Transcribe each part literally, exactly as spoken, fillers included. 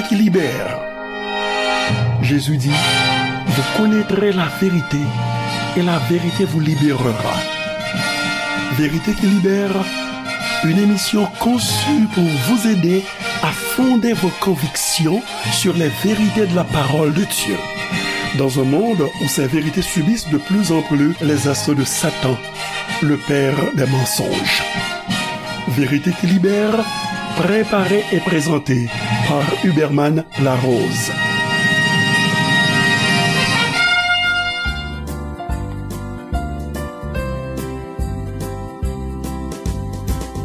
qui libère. Jésus dit, vous connaîtrez la vérité et la vérité vous libérera. Vérité qui libère, une émission conçue pour vous aider à fonder vos convictions sur les vérités de la parole de Dieu. Dans un monde où ces vérités subissent de plus en plus les assauts de Satan, le père des mensonges. Vérité qui libère, préparée et présentée par Huberman Larose.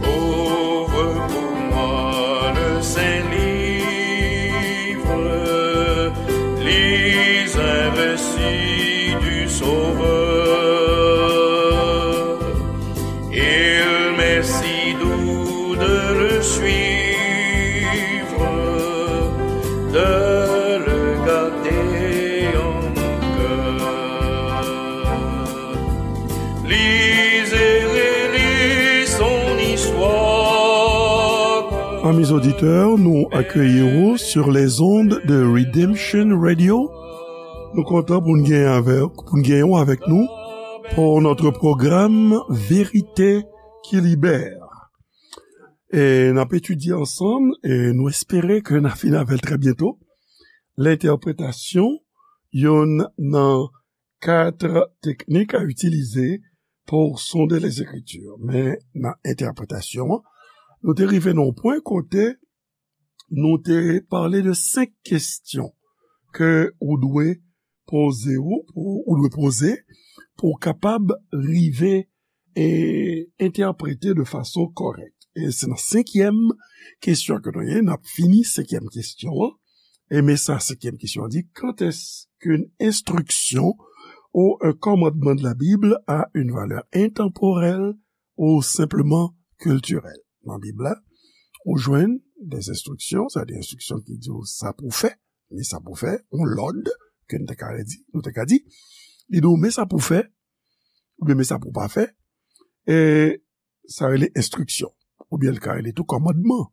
Ouvre pour moi le Saint-Livre, lis un récit du Sauveur. Il m'est si doux de le suivre, de le garder en mon cœur. Lis et relis son histoire. Amis auditeurs, nou akeyi w sur les ondes de Redemption Radio. Nou kontan pou n gen avèk, pou n gen w avèk nou pour notre programme Vérité qui libère. E n ap etidye ansanm, e nou espere ke n a fini avè l trè byento. Lentèpretasyon, youn nan kat teknik a itilize pou sonde Lezekritir. Men nan entèpretasyon an, nou te rive nan yon pwen kote nou te pale de senk kesyon ke ou dwe poze ou, pou, ou dwe poze pou w kapab rive e entèprete de fason kòrèk. E se nan senkyèm kesyon ke nou ye, n ap fini senkyèm kesyon an. E men sa, senkyèm kesyon an di, quand est-ce qu'une instruction ou un commandement de la Bible a une valeur intemporelle ou simplement culturelle? Nan Bib la, ou jwenn des instructions, sa di enstriksyon ki di w sa pou w fè, men sa pou w fè, yon lòd, ke nou te ka di, nou te ka di, li di w men sa pou w fè, oubyen men sa pou w pa fè, e sa rele enstriksyon, oubyen l ka rele tou kòmandman,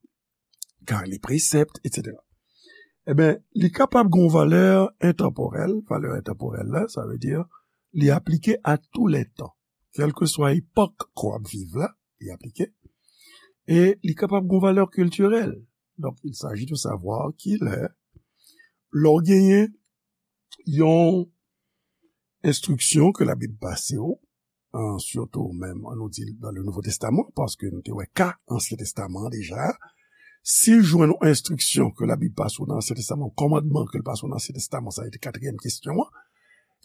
ka rele presèpt, etsetera. Ebyen, li kapab gen yon valè entanporèl, valè entanporèl la, sa vle di, li aplike a tou lè tan, kèlkeswa epòk ke w ap viv la, li aplike, e li kapab gen yon valè kiltirèl. Donk, il s'agit de savoir kilè, lè w genyen yon enstriksyon ke Labib pase w, an, sitou menm, an nou di, dans le Nouveau Testament, paske nou te wè ka Ansyen Testaman an deja, si w jwenn yon enstriksyon ke Labib pase w nan Ansyen Testaman, yon kòmandman ke l pase w nan Ansyen Testaman, sa se te katriyèm kesyon an,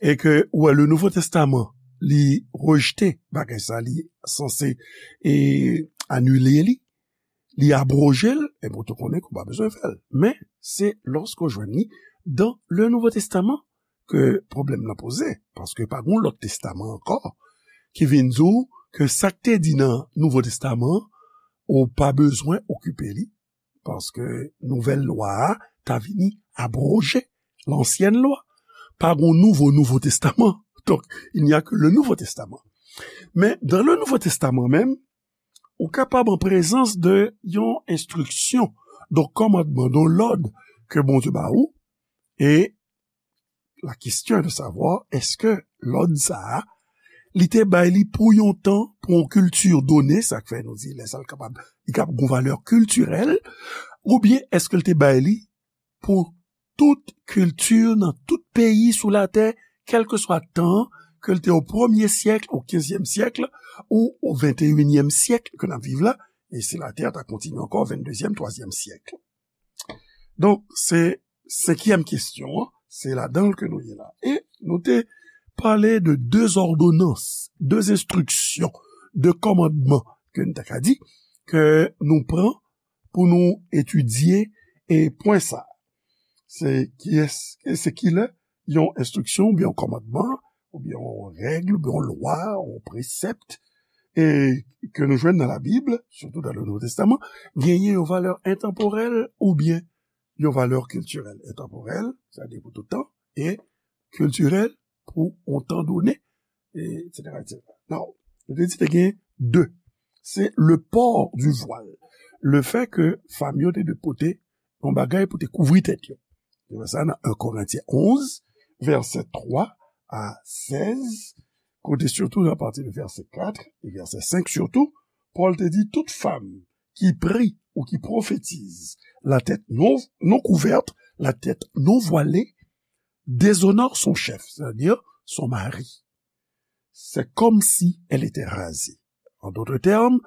e ke ou wè le Nouveau Testament, li rejte bagay sa, li sanse e anile li, li abroje l, ebyen, ou te konnen ke w pa bezwen fè l. Men, se lòske w jwenn li dans le Nouveau Testament ke pwoblèm nan poze, paske pa gen yon lòt testaman ankò ki vin di w ke sa k te di nan Nouvo Testaman an, ou pa bezwen okipe li, paske nouvèl lwa a ta vini abroje lansyèn lwa. Pa gen nouvo, Nouvo Testaman. Donk, il n'y a que le Nouveau Testament. Men, dans le Nouveau Testament menm, ou kapab an prezans de yon enstriksyon, de yon kòmandman, de yon lòd ke Bondye ba ou, e la question est de savoir, èske lòd sa a, li te bay li pou yon tan, pou yon kilti done, sa k fè nou di lè sa l kapab, li kapab gen valè kiltirèl, oubyen èske l te bay li pou tout kilti nan tout peyi sou latè, kèlkeswa tan ke l te o premye syèk, o kenzyèm syèk, ou o venteyinyèm syèk ke n ap viv la, e si latè ta kontinye ankò, venndezyèm, twazyèm syèk. Donk, se senkyèm kesyon an, se ladan l ke nou ye la. E nou te pale de de òdonans, de enstriksyon, de kòmandman, ke n ta ka di, ke nou pran pou nou etidye e pwen sa. Se kiyès, se kilè yon enstriksyon oubyen yon kòmandman, oubyen yon règ, oubyen yon lwa, yon presèpt, e ke nou jwenn nan Labib, sitou dans le Nouveau Testament, genyen yon valè entanporèl oubyen yon valè kiltirèl. Entanporèl, sa vle di pou tout tan, e kiltirèl pou yon tan done, etsetera, etsetera. Now, nou te di te gen de. Se le port du voile. Le fait que fanm yo te dwe pote yon bagay pou te kouvri tèt yo. Li fè sa nan en Korentyen onz, vèsè twa a sèz, kote sitou apati de vèsè kat e vèsè senk sitou, Pòl te di tout fanm ki pri ou ki pwofetize la tèt non, non kouvèt, la tèt non vwale, déshonore son chef, c'est-à-dire son mari. C'est comme si elle était rasée. En d'autres termes,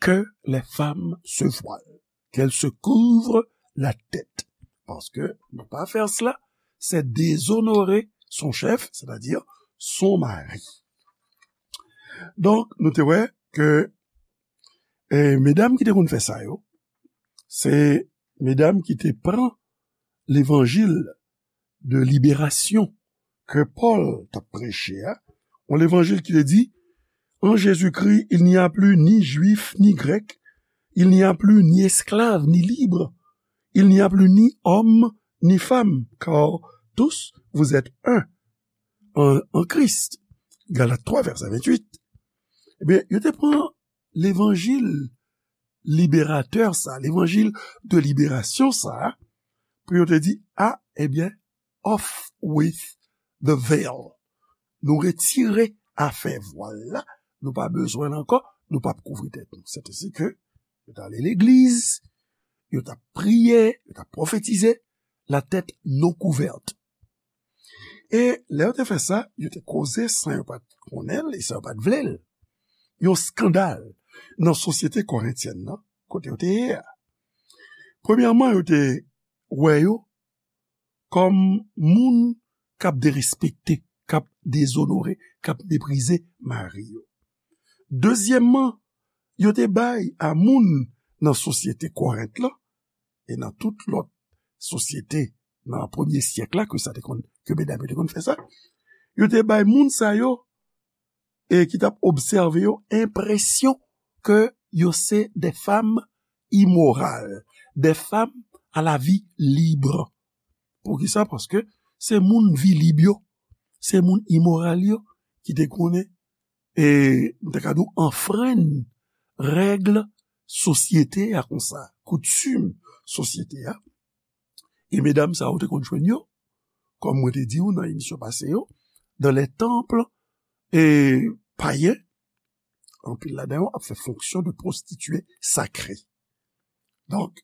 que les femmes se voilent, qu'elles se couvrent la tête. Paske ne pas faire cela, c'est déshonorer son chef, c'est-à-dire son mari. Donk, nou te wè ke, eh, medam ki te konn fè sa yo, se medam ki te pran levanjil de liberasyon ke Pòl t ap preche a, yon levanjil ki te di, en Jésus-Christ, il n'y a plus ni juif ni grec, il n'y a plus ni esclave ni libre, il n'y a plus ni homme ni femme, car tous vous êtes un en, en Christ. Galat twa, vèsè venntuit. Ebyen, yo te pran levanjil liberatè sa, levanjil de liberasyon sa, pou yo te di, ah, ebyen, off with the veil. Nou retire afè vwal la, nou pa bezwen l ankò, nou p ap kouvri tèt nou. Sètadi ke yo t ale legliz, yo t ap priye, yo t ap pwofetize, la tèt non kouvèt. E lè yo te fè sa, yo te koze san yo pa t konnen l e san yo pa t vle l. Yon eskandal nan sosyete korentyèn nan, kote yo te ye a. Premyèman, yo te wè yo kòm moun k ap derespekte, k ap dezonore, k ap meprize mari yo. Dezyèmman, yo te bay a moun nan sosyete Korent lan, e nan tout lòt sosyete nan premye syèk la, ke sa te konn, ke medam yo te konn fè sa, yo te bay moun sa yo, e ki t ap obsève yo, enpresyon ke yo se de fanm imoral, de fanm a la vi lib. Poukisa? Paske se moun vi lib yo, se moun imoral yo ki te konnen, e m ta ka di w, anfrenn règ sosyete a konsa, koutim sosyete a. E medam sa yo te konn jwenn yo, kòm mwen te di w nan emisyon pase yo, dans les temples, e payen, anpil ladan yo ap fè fonksyon de pwostitye sakre. Donk,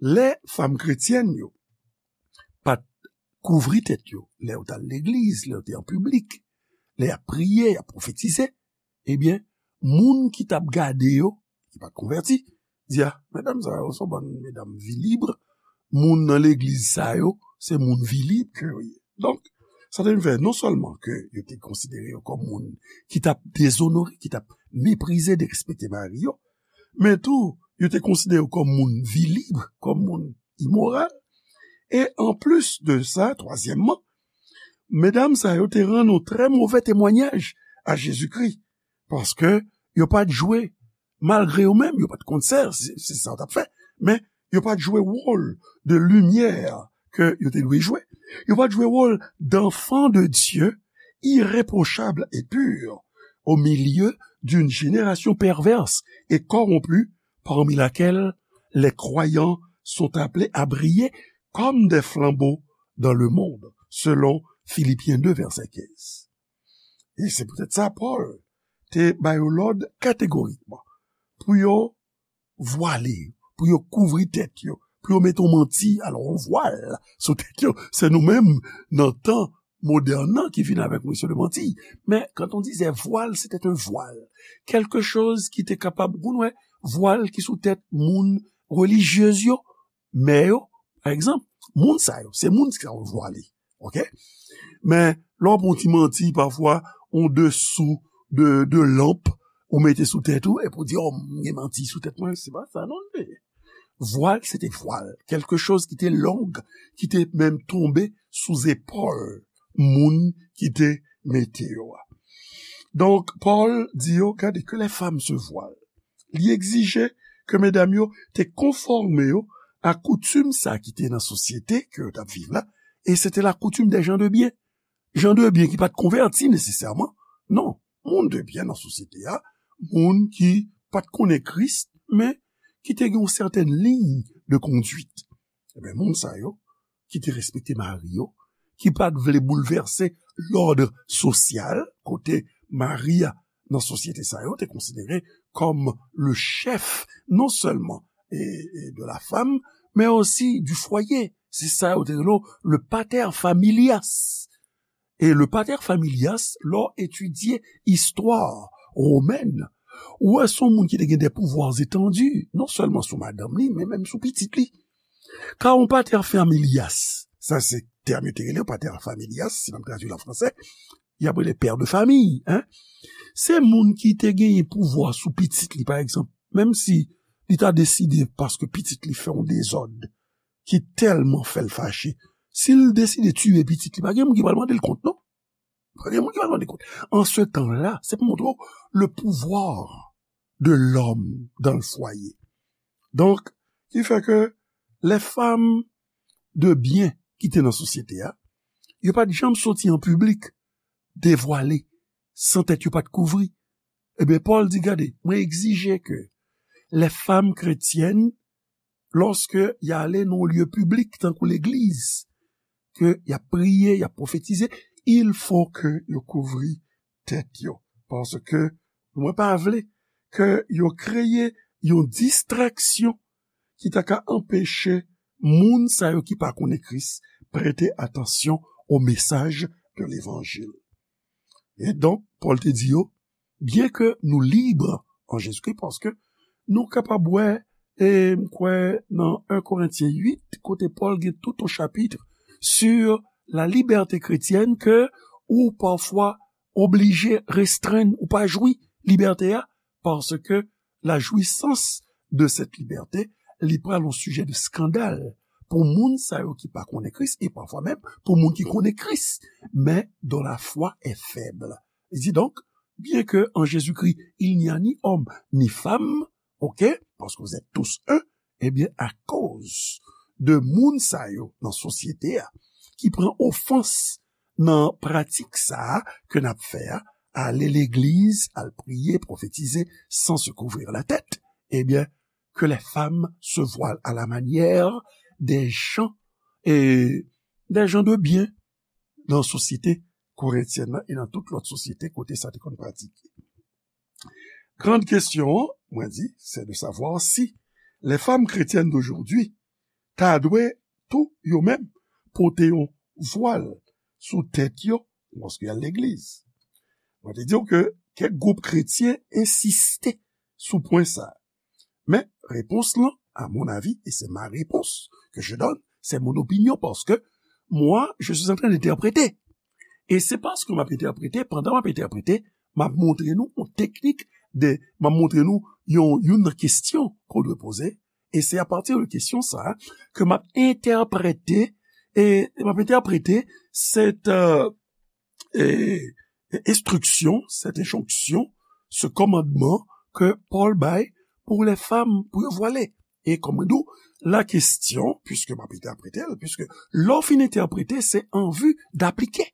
lè fanm kretyèn yo pa t kouvri tèt yo, lè yo t al legliz, lè yo te an piblik, lè y ap priye, y ap pwofetize, ebyen, moun ki t ap gade yo, ki pa t konvèti, di, ah, medam sa yo se yon bann medam vi lib, moun nan legliz sa yo, se moun vi lib ke yo ye. Donk, sa te vin fè non sèlman ke yo te konsidere yo kòm moun ki t ap dezonore, ki t ap meprize, derespekte mari yo, men tou, yo te konsidere yo kòm moun vi lib, kòm moun imoral. E anplis de sa, twazyèmman, medam sa yo te rann yon trè move temwanyaj a Jezikri, paske yo pa t jwe, malgre yo menm, yo pa t konn sa, se, se sa yo t ap fè, men yo pa t jwe wòl de limyè ke yo te dwe jwe. Yo pa t jwe wòl d'enfants de Dieu, irréprochables et purs, au milieu d'une génération perverse et corrompue, parmi laquelle les croyants sont appelés à briller comme des flambeaux dans le monde, selon Philippiens deux, verset quinze. E se poutèt sa, Pòl te ba yo lòd kategorikman pou yo vwale, pou yo kouvri tèt yo, pou yo mete yon manti, alò yon vwal sou tèt yo. Se nou menm, nan tan modèn nan, ki vin avèk mesye de manti. Men, quand on disait voile, c'était un voile. Quelque chose ki te kapab, ou konn wè, vwal ki sou tèt moun relijyez yo, mè yo, pa egzanp, moun sa yo, se moun sa yo vwale. Oke? Men, lè w pran ti manti, pafwa, yon desou de, de lanp, ou mete sou tèt ou, epi w di, oh, m gen manti sou tèt mwen, se pa sa, non, l ye. Vwal, se te vwal. Quelque chose ki te long, ki te menm tonbe sou zepòl moun ki te mete yo a. Donk, Pòl di yo, gade, que les femmes se voilent. Li egzije ke medam yo te konfòme yo a koutim sa ki te nan sosyete ke yo t ap viv la, e se te la coutume des gens de bien. Jan de byen ki pa t konvèti nesesèman, non, moun de byen nan sosyete a, moun ki pa t konnen Kris, men ki te gen yon sètèn liy de konduit. Ebyen, moun sa yo, ki te respekte mari yo, ki pa t vle boulvèse lòd sosyal, kote mari a nan sosyete sa yo te konsidere kòm le chèf non sèlman e, e de la femme, mais aussi du foyer. Se sa yo te rele le pater familias. E le pater familias, lè w etidye istwa womèn, ou wè se yon moun ki te gen de pouvwa etandi, non sèlman sou madanm li, men menm sou pitit li. Ka yon pater familias, sa se tèm yo te rele pater familias, si n ap tradui l an fransè, y ap rele pè de famiy, en. Se moun ki te genyen pouvwa sou pitit li, pa egzanp, menm si li ta deside, paske pitit li fè yon dezòd ki tèlman fè l fache, si l deside tiye pitit li, pa gen moun ki pral mande l kont, non. Pa gen moun ki pral mande kont. An se tan la, se pou montre w le pouvoir de l'homme dans le foyer. Donk, ki fè ke les femmes de bien ki te nan sosyete a, yo pa t janm soti an piblik, devwale, san tèt yo pa t kouvri. Ebyen, Pòl di, gade, mwen egzije ke les femmes chrétiennes, lòske y ale nan yon lye piblik, tankou legliz, ke y ap priye, y ap pwofetize, il faut que yo kouvri tèt yo. Paske mwen pa vle ke yo kreye yon distraksyon ki ta ka anpeche moun sa yo ki pa konnen Kris prete atansyon o mesaj de levanjil. E donk, Pòl te di yo, byen ke nou lib an Jezikri, paske nou kapab wè, e m kwè nan en Korentyen uit, kote Pòl gen tout yon chapit sur la liberté chrétienne, ke ou pafwa oblije restrenn, ou pa jwi libète a, paske la jouissance de cette liberté, li pral yon sijè de skandal pou moun sa yo ki pa konnen Kris, e pafwa menm pou moun ki konnen Kris, mais dont la foi est faible. Li di donk, bien que en Jésus-Christ, il n'y a ni homme ni femme, ok, parce que vous êtes tous un, ebyen, akoz de moun sa yo nan sosyete a, ki pran ofans nan pratik sa a ke n ap fè a, ale legliz, al priye, pwofetize, sans se couvrir la tête, ebyen, que les femmes se voilent à la manière des gens, et des gens de bien nan sosyete korentyèn nan e nan tout lòt sosyete kote sa te konn pratike. Grande question, mwen di, c'est de savoir si les femmes chrétiennes d'aujourd'hui ta dwe tou yo menm pote yon vwal sou tèt yo lòske y al legliz. Mwen te di w ke kèk gwoup kretyen ensiste sou pwen sa. Men, repons lan, à mon avis, et c'est ma réponse que je donne, c'est mon opinion, parce que moi, je suis en train d'interpréter. E se paske m ap entèprete, pandan m ap entèprete, m ap montre nou yon teknik de, m ap montre nou yon, youn nan kesyon ke w dwe poze, e se apati de kesyon sa a ke m ap entèprete, e m ap entèprete cette, euh, e, e, instruction, cette injonction, ce commandement que Paul bay pour les femmes, pou yo vwale. E kòm mwen di w, la kesyon, puiske m ap entèprete l, puiske lè w fin entèprete, se an vi d'aplike.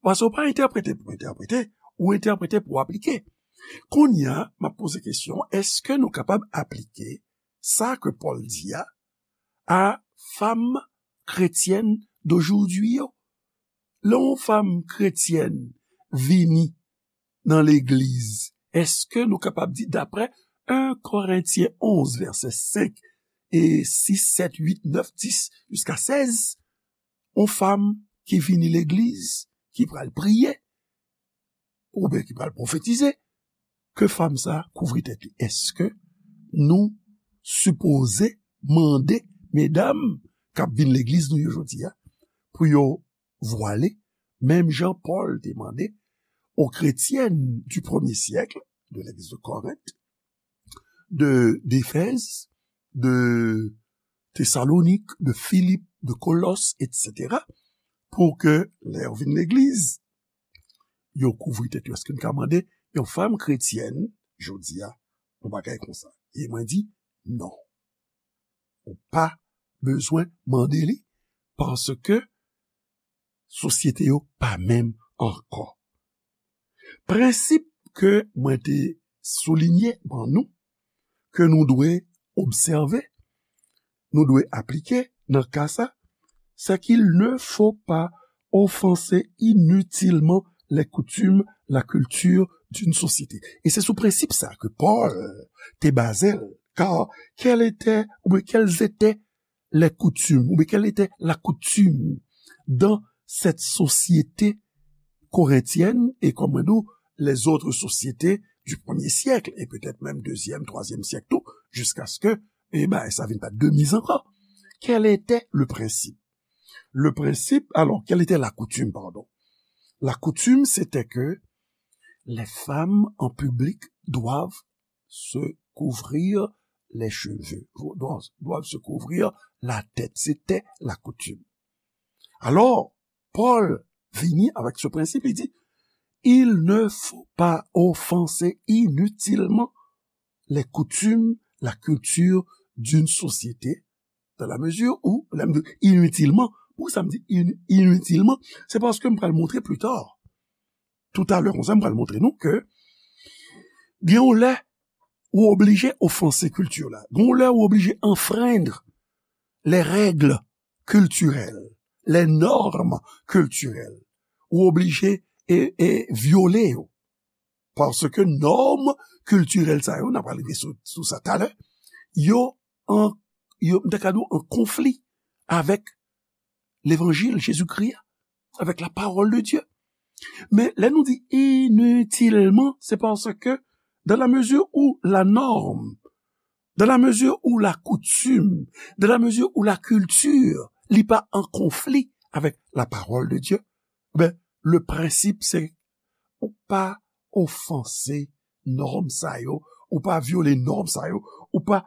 Paske w pa entèprete pou entèprete, ou entèprete pou aplike. Kounye a, m ap poze kesyon, èske nou kapab aplike sa ke Pòl di a, a fanm kretyèn d'aujourd'hui yo? Lè yon fanm kretyèn vini nan legliz, èske nou kapab di, daprè en Korentyen onz, vèsè senk e sis, sèt, uit, nèf, dis, jiska sèz, yon fanm ki vini legliz, ki pral priye, oubyen ki pral pwofetize, ke fanm sa a kouvri tèt li? Èske nou sipoze mande medam k ap vin legliz nou yo jodi a pou yo vwale, menm jan Pòl te mande aux chrétiennes du premier siècle de l'église de Corinthe, de, d'Éphèse, de Thessalonique, de Philippe, de Colosses, et cetera, pou ke lè yo vin legliz, yo kouvri tèt yo? Èske n ka mande yon fanm kretyèn jodi a yon bagay konsa? E mwen di, non. Ou pa bezwen mande li, paske sosyete yo pa menm ankò. Prensip ke mwen te soulinye ban nou, ke nou dwe obsève, nou dwe aplike, nan ka sa, c'est qu'il ne faut pas offenser inutilement les coutumes, la culture d'une société. E se sou prensip sa ke Pòl te baze l, car quelles étaient, ou bien quelles étaient les coutumes, ou bien quelle était la coutume dans cette société corinthienne et, comme on dit, les autres sociétés du premier siècle et peut-être même deuxième, troisième siècle tout, jusqu'à ce que, eh ben, ça vienne pas de mise encore. Quel était le principe? Le principe, alors, quelle était la coutume, pardon? La coutume, c'était que les femmes en public doivent se couvrir les cheveux, doivent, doivent se couvrir la tête. C'était la coutume. Alors, Pòl vini avec ce principe, il dit, il ne faut pas offenser inutilement les coutumes, la culture d'une société, dans la mesure où, lè m di inutilement, pou sa m di in- inutilement, c'est parce que m pral montre plus tard. Tout à l'heure, konsa m pral montre nou ke gen yon lè ou oblije ofanse kilti la. Gen yon lè ou oblije enfreindre les règles culturelles, les normes culturelles. Ou oblije e, e vyole yo. Paske nòm kiltirèl sa yo, n ap rive sou, sou sa talè, yo an, yo, m ta ka di w, an konfli avec l'évangile Jésus-Christ, avec la parole de Dieu. Men lè nou di inutilement, c'est parce que dans la mesure où la norme, dans la mesure où la coutume, dans la mesure où la culture, li pa an konfli avec la parole de Dieu, ben, le principe c'est ou pa ofanse nòm sa yo, ou pa vyole nòm sa yo, ou pa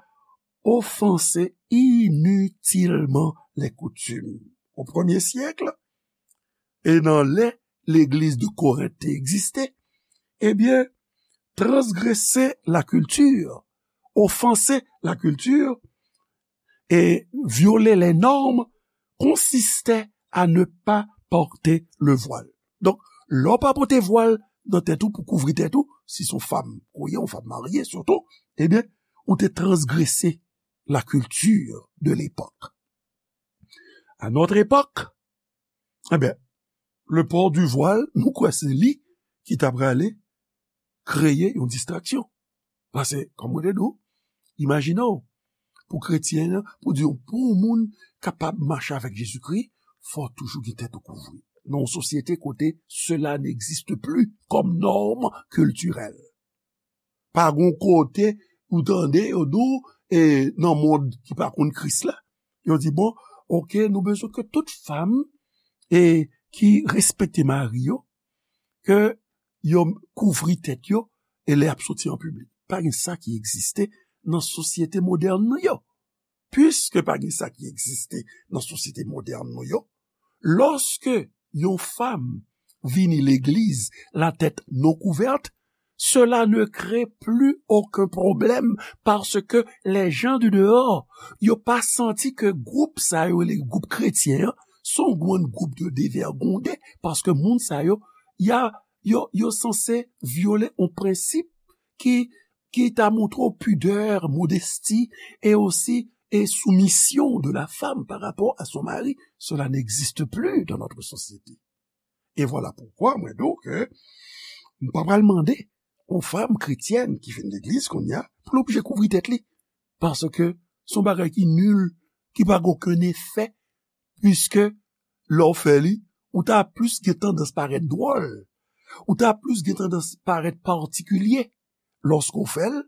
ofanse inutilement les coutumes. Au premier siècle, e nan lè legliz de Korent te egziste, ebyen, transgrese la culture, offenser la culture, et violer les normes consistait à ne pas porter le voile. Donk, lè w pa pote vwal nan tèt ou pou kouvri tèt ou, si se yon fanm ou ye, yon fanm marye sitou, ebyen, ou te transgrese la culture de l'époque. À notre époque, ebyen, le port du voile, nou kwè se li ki ta prale kreye yon distraksyon. Paske, kòm mwen te di w, imajine w, pou kretyen an, pou di w, pou yon moun kapab mache avèk Jezikri, fò w toujou gen tèt ou kouvri. Nan yon sosyete kote cela n'existe plus comme norme culturelle. Pa gon kote ou tande yo di w, e, nan mond ki pa konn Kris la, yo di, bon, oke, nou bezwen ke tout fanm, e, ki respekte mari yo, ke yo kouvri tèt yo, e lè y ap soti an piblik. Pa gen sa ki egziste nan sosyete modèn nou yo. Piske pa gen sa ki egziste nan sosyete modèn nou yo, lòske yon fanm vini legliz la tèt non kouvèt, cela ne crée plus aucun problème parce que les gens du dehors, yo pa santi ke gwoup sa yo, le gwoup kretyen an, se yon grenn gwoup de devègonde, paske moun sa yo, y a, yo, yo sanse vyole yon prensip ki, ki ta montre w pidè, modesti, e osi, e soumisyon de la femme par rapport à son mari. Cela n'existe plus dans notre société. E vwala poukwa mwen di w ke m pa pral mande yon fanm kretyèn ki vin legliz kounye a pou l oblije kouvri tèt li. Paske se yon bagay ki nil, ki pa gen okenn efè, piske lè w fè li, ou ta plis gen tandans parèt dwòl, ou ta plis gen tandans parèt patikilye lòske w fè l,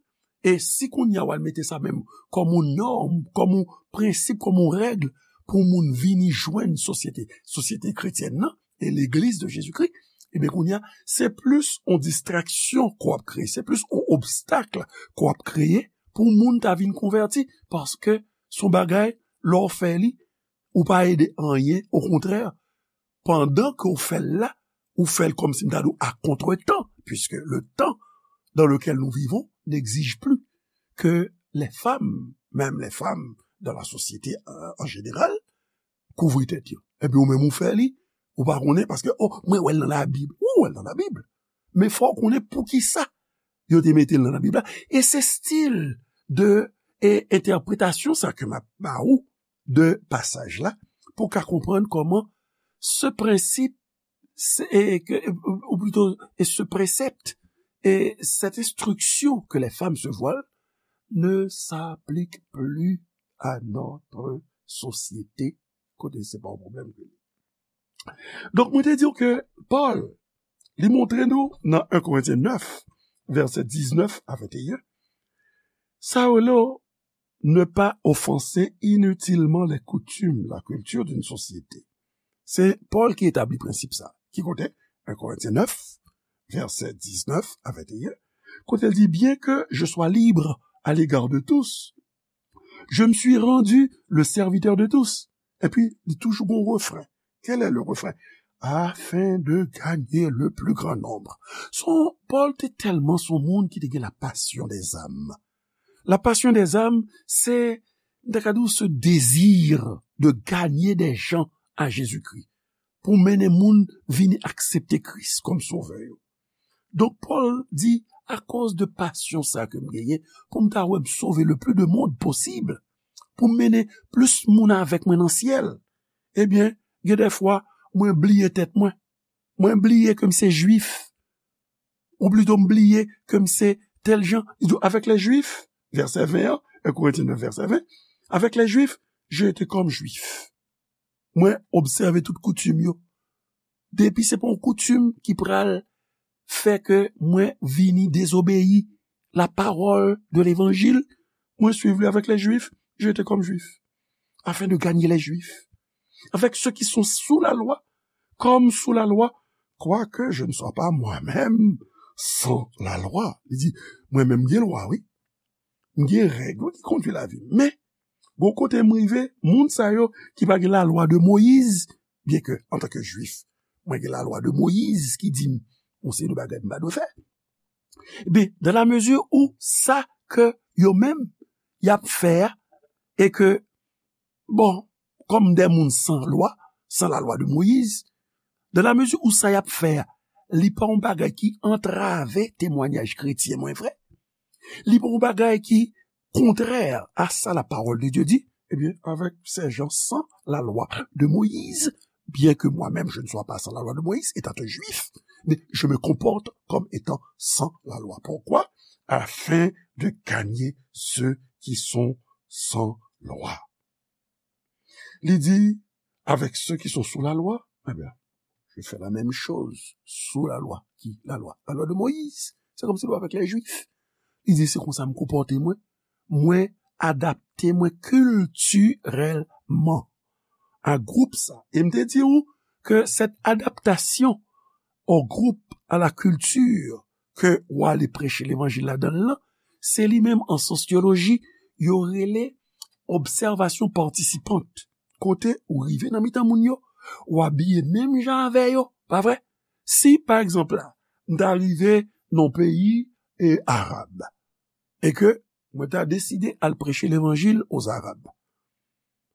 e si kounye a w al mete sa menm kòm yon nòm, kòm yon prensip, kòm yon règ pou moun vini jwenn sosyete, sosyete kretyèn nan, e legliz de Jezikri, ebyen kounye a, se plis yon distraksyon ke w ap kreye, se plis yon obstak ke w ap kreye pou moun ta vin konvèti, paske se yon bagay, lè w fè li, ou pa ede anyen, okontrè, pandan ke w fè l la, ou fè l kòmsi m ta di w à contretemps, puisque le temps dans lequel nous vivons n'exige plus que les femmes, même les femmes dans la société, euh, en général, kouvri tèt yo. Epi ou menm ou fè li, ou pa konnen, paske, oh, mwen wè l nan Labib. Ou wè l nan Labib. Men fò w konnen poukisa yo te mete l nan Labib la. E se stil de, e, entèpretasyon sa ke m ap ba ou, de pasaj la pou w ka konprann kòman ce principe, c'est, et que, ou plutôt, et ce précepte, et cette instruction que les femmes se voilent ne s'applique plus à notre société. Kote se pa yon pwoblèm ke li. Donk, mwen te di w ke Pòl, li montre nou nan en Korentyen nèf, vèsè diznèf a venteyen, sa yo rele ne pas offenser inutilement les coutumes, la culture d'une société. Se Pòl ki etabli prensip sa. Ki kote? En Korentyen nèf, vèsè diznèf a venteyen, kote l di, bien que je sois libre à l'égard de tous, je me suis rendu le serviteur de tous. Epi, li toujou gon refren. Quel est le refrain? Afin de gagner le plus grand nombre. Son, Pòl te tèlman son moun ki te gen la passion des âmes. La passion des âmes, se, m ta ka di w, ce désir de gagner des gens à Jésus-Christ. Pou mennen moun vini aksepte Kris kòm sovè yo. Donk, Pòl di, akoz de passion sa ke m genyen, pou m ta wè m sove le plus de monde possible, pou m mennen plis moun avèk mwen nan syèl, ebyen, gen de fwa, mwen bliye tèt mwen. Mwen bliye ke m se jwif. Ou plito m bliye ke m se tèl jan. Li di, avec les Juifs, vèsè ven an, en Korentyen nèf, vèsè ven, avec les Juifs, j'ai été comme juif. Mwen obsève tout koutim yo. Depi se pa yon koutim ki pral fè ke mwen vini dezobeyi la parole de l'évangile, mwen suiv li avec les Juifs, j'ai été comme juif, afin de gagner les Juifs. Avec ceux qui sont sous la loi, comme sous la loi, quoique je ne sois pas moi-même sans la loi. Li di, mwen menm gen lwa, wi. M gen règ, wi, ki kondui lavi m. Men, gon kote m rive, moun sa yo ki pa gen la lwa de Moyiz, byen ke, antanke jwif, mwen gen la lwa de Moyiz ki di m, yon seri de bagay m pa dwe fè. Ebyen, dans la mesure où sa ke yo menm, y ap fè a, e ke, bon, kòm de moun san lwa, san la lwa de Moyiz, dans la mesure où sa y ap fè a, li pa yon bagay ki antrave temwanyaj kretyen mwen vre, li pa yon bagay ki kontrè a sa la parole de Dieu dit, ebyen, avec ces gens sans la loi de Moïse, bien que moi-même je ne sois pas sans la loi de Moïse, étant un juif, mais je me comporte comme étant sans la loi. Pourquoi? Afin de gagner ceux qui sont sans loi. Li di, avec ceux qui sont sous la loi, eh bien, je fais la même chose sous la loi. Qui? La loi. La loi de Moïse. C'est comme si avec les Juifs. Li di, se konsa m konpòte mwen. Mwen adapte mwen kiltirèlman a gwoup sa. E m te di w ke cette adaptation au groupe, à la culture, ke w ale preche levanjil ladan l lan, se li menm an sosyoloji, yo rele observation participante. Kote ou rive nan mitan moun yo, ou abiye menm jan avè yo, pa vre? Si, pa egzanp la, m ta rive nan peyi e arab, e ke mwen ta deside al preche levanjil aux Arabes,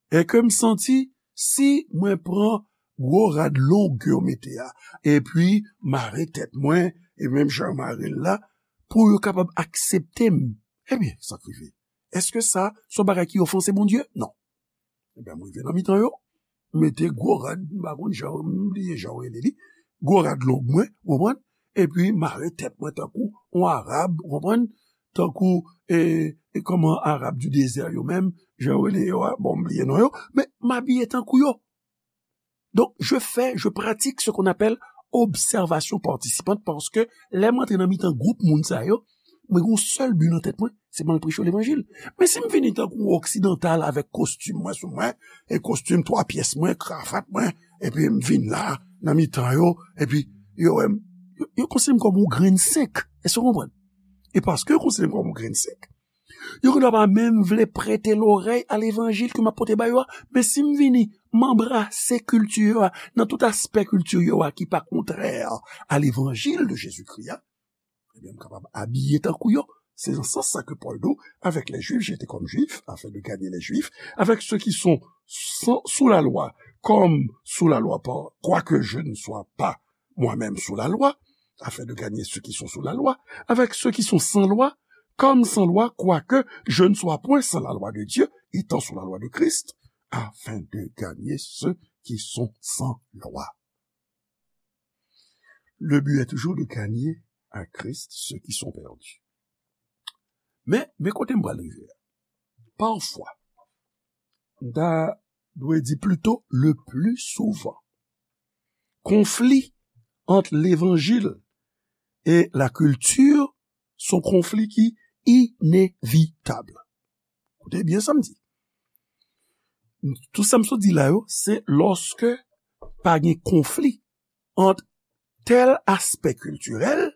e ke m santi, si mwen pran gwo rad long ke yo mete a, epi mare tèt mwen, e menm jan yo mare l la, pou yo kapab aksepte m, ebyen, sa k rive? Èske sa se yon bagay ki ofanse Bondye? Non. Ebyen, mwen rive nan mitan yo, mete gwo rad, m pa konn jan, m bliye jan yo rele li, gwo rad long mwen, ou konprann? Epi mare tèt mwen tankou yon Arab, ou konprann? Tankou, e, e kòman Arab du désert yo menm, jan yo rele yo a, bon, m bliye non yo, men m abiye tankou yo. Donc, je fais, je pratique ce qu'on appelle observation participante, paske lè m antre nan mitan gwoup moun sa yo, mwen gen yon sèl bi nan tèt mwen, se pou m al preche levanjil. Men si m vini tankou yon oksidantal avèk kostim mwen sou mwen, e kostim twa pyès mwen, kravat mwen, epi m vin la, nan mitan yo, epi yo wè m, yo, yo konsidere m kòm yon grenn senk. Èske w konprann? E paske yo konsidere m kòm yon grenn senk, yo konn pa menm vle prete lorèy a levanjil ke m ap pote ba yo a. Men si m vini, m anbrase kilti yo a, nan tout aspè kilti yo a ki pa kontrè a levanjil de Jezikri a, ebyen, m kapab abiye tankou yo. Se nan sans sa ke Pòl di, avec les Juifs, j'étais comme juif, afin de gagner les Juifs, avec ceux qui sont sans, sous la loi, comme sous la loi, par, quoique je ne sois pas moi-même sous la loi, afin de gagner ceux qui sont sous la loi, avec ceux qui sont sans loi, comme sans loi, quoique je ne sois point sans la loi de Dieu, étant sous la loi de Christ, afin de gagner ceux qui sont sans loi. Le but est toujours de gagner à Christ ceux qui sont perdus. Men, men kote m pral rive a. Pafwa, m ta dwe di plito le pli souvan, konfli ant levanjil e lakilti se yon konfli ki inevitab. Koute byen sa m di. Tout sa m sot di la yo, se lòske pa gen konfli ant tèl aspè kiltirèl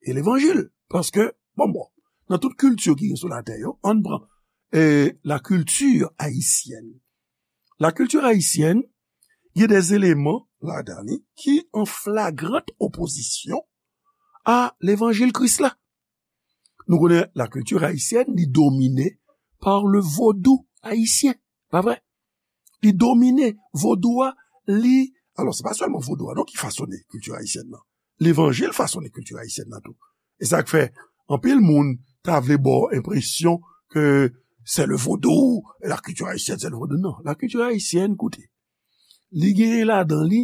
e levanjil. Paske, bon, bon, nan tout kilti ki gen sou latè yo, ann pran eh, la kilti ayisyèn. La kilti ayisyèn, gen de eleman ladan li ki an flagrant opozisyon a levanjil Kris la. Nou konnen la kilti ayisyèn, li domine par le vodou ayisyen, pa vre? Li domine vodou a, li, alò, se pa sèlman vodou a non ki fasone kilti ayisyèn nan. Levanjil fasone kilti ayisyèn nan tou. E sa k fè anpil moun ta vle ba w enpresyon ke c'est le vaudou, la culture haïtienne, c'est le vaudou. Non, la culture haïtienne, koute, li genyen ladan li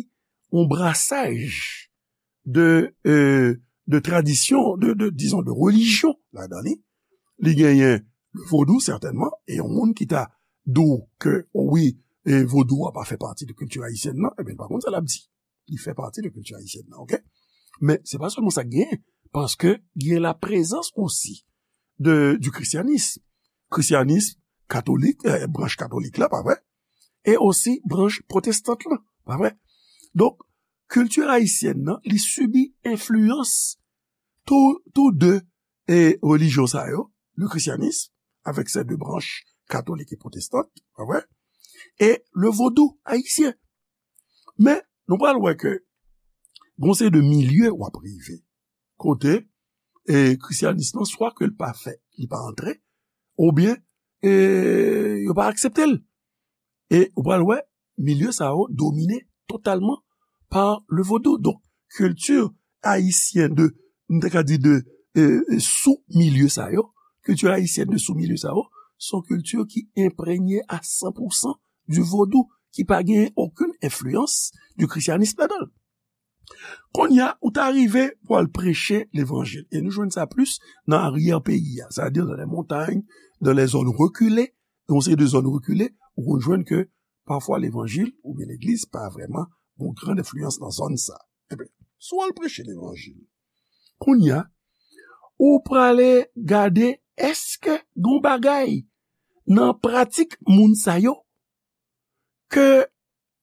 yon brasaj de, euh, de tradisyon, de, de, dizon, de relijyon ladan li. Li genyen le vodou, sètènman, e yon moun ki ta di w ke, o wi, e vodou a pa fè pati de kilti ayisyèn nan, ebyen, pa konn sa l ap di. Li fè pati de kilti ayisyèn nan, oke? Men se pa sèlman sa k genyen, paske gen la prezans osi de, du christianisme. Christianisme katolik, eh, branch katolik la, pa vre? E osi branch pwotestant la, pa vre? Donk, kilti ayisyèn nan, li sibi enfliyans tou, tou de e relijyon sa yo, le christianisme, avec ses deux branches, catholique et protestante, pa vre? E le vodou ayisyen. Men, nou pral wè ke gon seri de milye w ap rive kote e krisyanis lan, swa ke l pa fè, li pa antre, oubyen e yo pa aksepte l. E ou pral wè, milye sa yo domine totalman pa le vodou. Donk, kilti ayisyen de, m te ka di de, e, e, sou milye sa yo, kilti ayisyèn de sou milye sa yo, se yon kilti ki enprenye a san pou san du vodou, ki pa gen okenn enfliyans du christianisme ladan l. Kounye a, ou ta rive pou al preche levanjil. E nou jwenn sa plis nan aryè peyi a, sètadi dans les montagnes, dans les zones reculées, yon seri de zòn rekile, ou konn jwenn ke pafwa levanjil oubyen legliz pa vrèman yon gran enfliyans nan zòn sa. Ebyen, si w al preche levanjil, kounye a, ou prale gade èske gon bagay nan pratik moun sa yo ke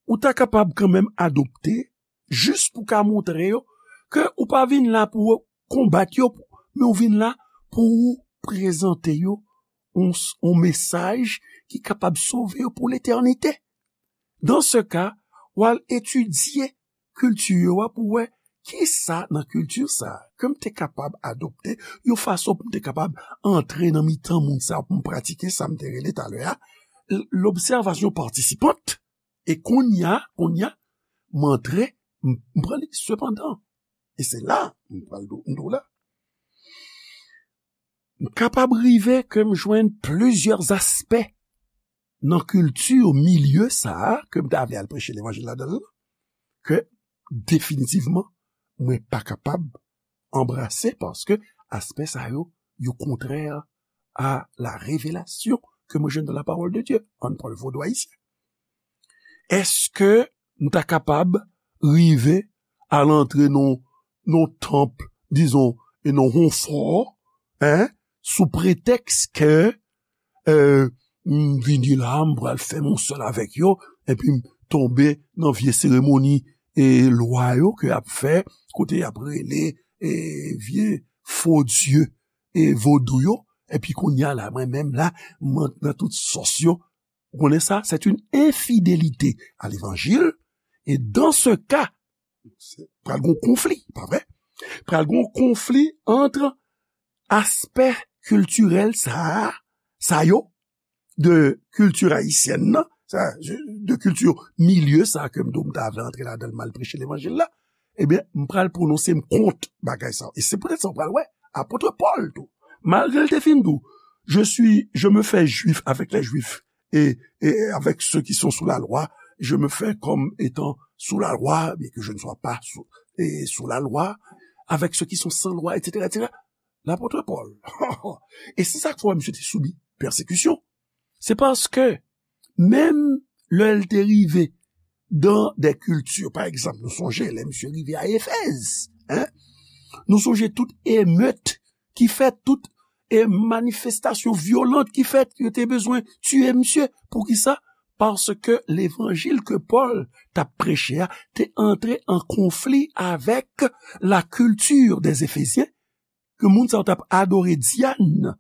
ou ta kapab kanmenm adopte, jis pou ka montre yo ke ou pa vin la pou konbat yo, men ou vin la pou ou prezante yo yon, yon mesaj ki kapab sove yo pou letènite. Dan se ka, w al etidye kilti yo a pou wè kisa nan kilti sa a ke m te kapab adopte, yon fason pou m te kapab antre nan mitan moun sa a pou m pratike sa m te rele talè a, l-, l'observation participante. E kounye a, kounye a, m antre, m, m pran li. Sepandan, e se la, m pral di w, m di w la, m kapab rive ke m jwenn plizyè aspè nan kilti milye sa a ke m ta vle al preche levanjil ladan l, ke definitivman, mwen pa kapab anbrase, paske aspè sa yo, yo kontrè a la revelasyon ke mwen jwenn nan la parole de Dieu. Ann pran le vodou ayisyen. Èske m ta kapab rive al antre nan, nan tanp, dizon, e nan yon fò, en, sou pretèks ke, e, m vini la, m pral fè m yon sèl avèk yo, epi m tonbe nan vye seremoni e lwa yo ke y ap fè, kote y ap rele, e, vye fo dye, e, vodou yo, epi kounye a la, mwen menm la, m antre nan tout sòs yo. Ou konnen sa, c'est une infidélité à l'évangile, e dans ce cas, se pral gon konfli, pa vre? Pral gon konfli ant aspè kiltirèl sa a, sa yo, de kilti ayisyèn nan, sa, de kilti milye sa ke m di w m ta vle antre ladan l, m al preche levanjil la, ebyen, m pral pwononse m kont bagay sa yo. E se poutèt sa w pral wè, apot Pòl tou, malgre l te fin di w, je suis, je me fais juif avec les juifs et, et avec ceux qui sont sous la loi, je me fais comme étant sous la loi, bien que je ne sois pas sous, et sous la loi, avec ceux qui sont sans loi, et cetera, et cetera. Lapot Pòl. E se sa k fè misye te sibi pèsekisyon. Se paske, menm lè l te rive dans des cultures, pa egzanp, nou sonje, lè misye rive a Efèz, hein? Nou sonje tout emet ki fèt, tout e manifestasyon vyolant ki fèt, yo te bezwen tiye misye. Poukisa? Paske levanjil ke Pòl t ap preche a te antre an konfli avèk la culture des Éphésien, ke moun sa yo t ap adore Diane,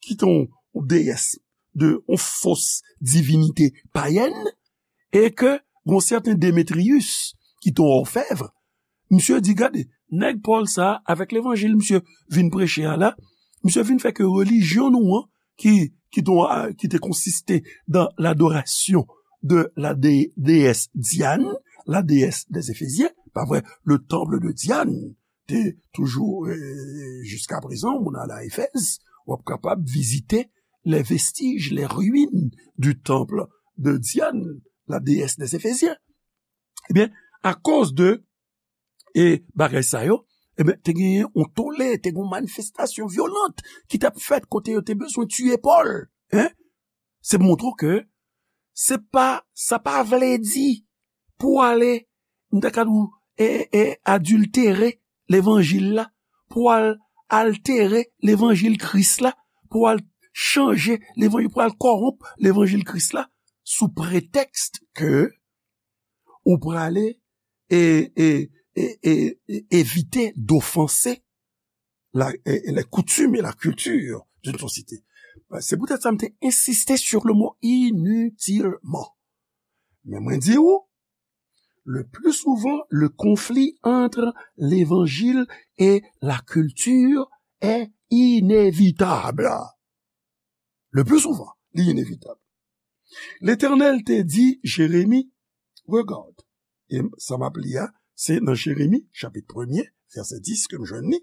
ki te yon, yon deyès de yon fos divinite payèn, e ke yon sèten Demetriyis, ki te yon òfèv, misye di, gade, nèg Pòl sa a, avèk levanjil misye vin preche a la, misye vin fè ke relijyon nou an, ki, ki te, ki te konsiste dans l'adoration de la dé-, déesse Diane, la déesse des Éphésiens, pa vre, le temple de Diane, te toujou, euh, jusqu'à présent, moun al a Efèz, w ap kapab vizite les vestiges, les ruines du temple de Diane, la déesse des Éphésiens. Ebyen, akoz de, e, bagay sa yo, ebyen, te genyen yon tole, te gen yon manifestasyon vyolant ki t ap fèt kote yo te bezwen tiye Pòl, hein? Se pou montre w ke se pa, sa pa vle di pou w ale, m ta ka di w, e, e, adiltere levanjil la, pou w al altere levanjil Kris la, pou w al chanje levanjil, pou w al kòwonp levanjil Kris la, sou pretèks ke ou prale e, e, e, e, e evite d'offenser la, e, e les coutumes et la culture d'une société. Se poutèt sa m te ensiste sur le mot inutilement. Men mwen di w, le plus souvent, le conflit entre l'évangile et la culture est inévitable. Le plus souvent, li inevitab. Letènèl te di Jeremi, regarde, e sa m ap li a, se nan Jeremi, chapit premye, vèsè dis, ke m jwenn li,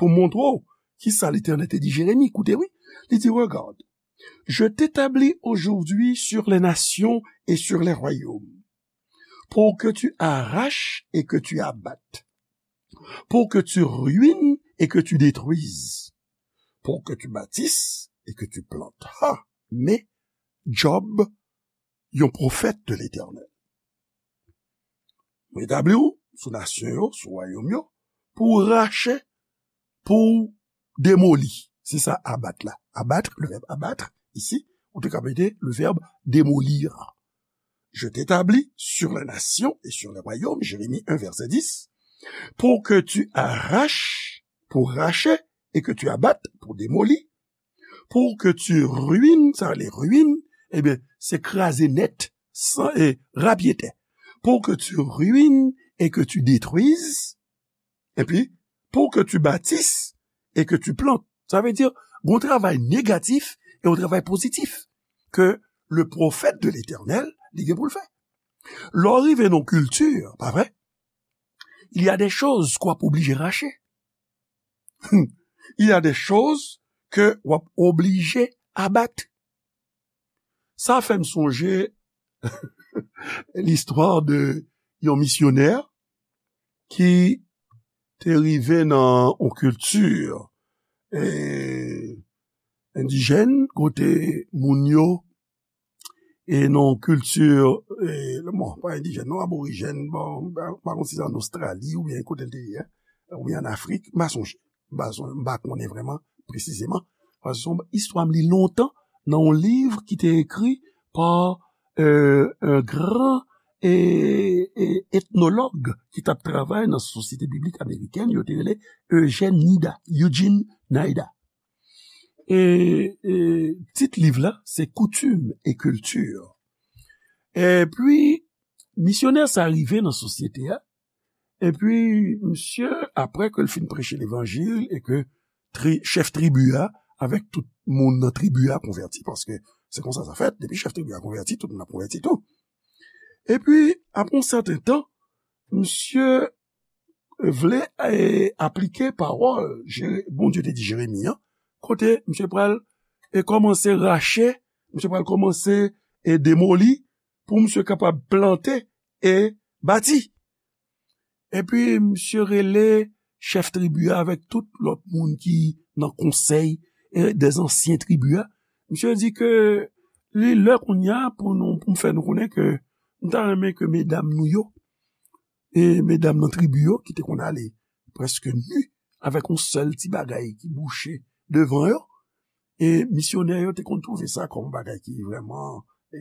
pou montre w kisa Letènèl te di Jeremi. Koute, wi, li di, regarde, je t'établis aujourd'hui sur les nations et sur les royaumes, pour que tu arraches et que tu abattes, pour que tu ruines et que tu détruises, pour que tu bâtisses et que tu plantes. Ha! Men, Job, yon pwofèt de Letènèl. Mwen etabli w sou nasyon yo, sou wayòm yo, pou w rache, pou w demoli. Se sa, abat la. Abat, le verbe abattre, ici, ou te ka mete le verbe démolir. Je t'établis sur les nations et sur les royaumes, Jérémie un, verset dix, pour que tu arraches, pour racher, et que tu abattes, pour démolir, pour que tu ruines, sa vle ruine, ebyen, se kraze nèt, san, e, rapyetè. Pour que tu ruines et que tu détruises, epi, pour que tu bâtisses et que tu plantes. Sa vle di, gon travay negatif e yon travay pozitif ke le pwofèt de Letènèl, li gen pou l fè. Lè w rive nan kilti, pa vre? Il y a des choses ke w ap oblije rache. Il y a des choses ke w ap oblije abat. Sa fè m sonje listwa de yon misyonè ki te rive nan yon kilti, e, endijèn, kote moun yo, e nan yon kilti, e, bon, pa endijèn, non, aborijèn, bon, m pa, m pa konn si se an Ostrali oubyen kote l te ye, oubyen an Afrik, m pa sonje. M pa son-, m pa konnen vrèman presizeman. Paske se yon istwa m li lontan nan yon liv ki te ekri pa, euh, un grand, e, e, etnològ ki t ap travay nan Sosyete Biblik Amerikèn, yo te rele Eugene Nida, Eugene Nida. E, e tit liv la, se Coutumes et culture. Epi, misyonè sa rive nan sosyete a, epi, misye, apre ke l fin preche levanjil e ke tri-, chèf tribi a, avèk tout moun nan tribi a konvèti, paske se konsa sa fèt, depi chèf tribi a konvèti, tout moun ap konvèti tou. Epi, apre yon sèten tan, misye vle, e, aplike pawòl Jere-, Bondye te di Jeremi an, kote misye pral, e, kòmanse rache, misye pral kòmanse, e demoli, pou misye kapab plante e bati. Epi misye rele chèf tribi a avèk tout lòt moun ki nan konsèy e dèzansyen tribi a. Misye di ke li lè kounye a pou nou, pou m fè nou konnen ke m ta renmen ke medam nou yo, e medam nan tribi yo ki te konn ale prèske ni avèk yon sèl ti bagay ki bouche devan yo, e misyonè yo te konn twouve sa kòm yon bagay ki vrèman e,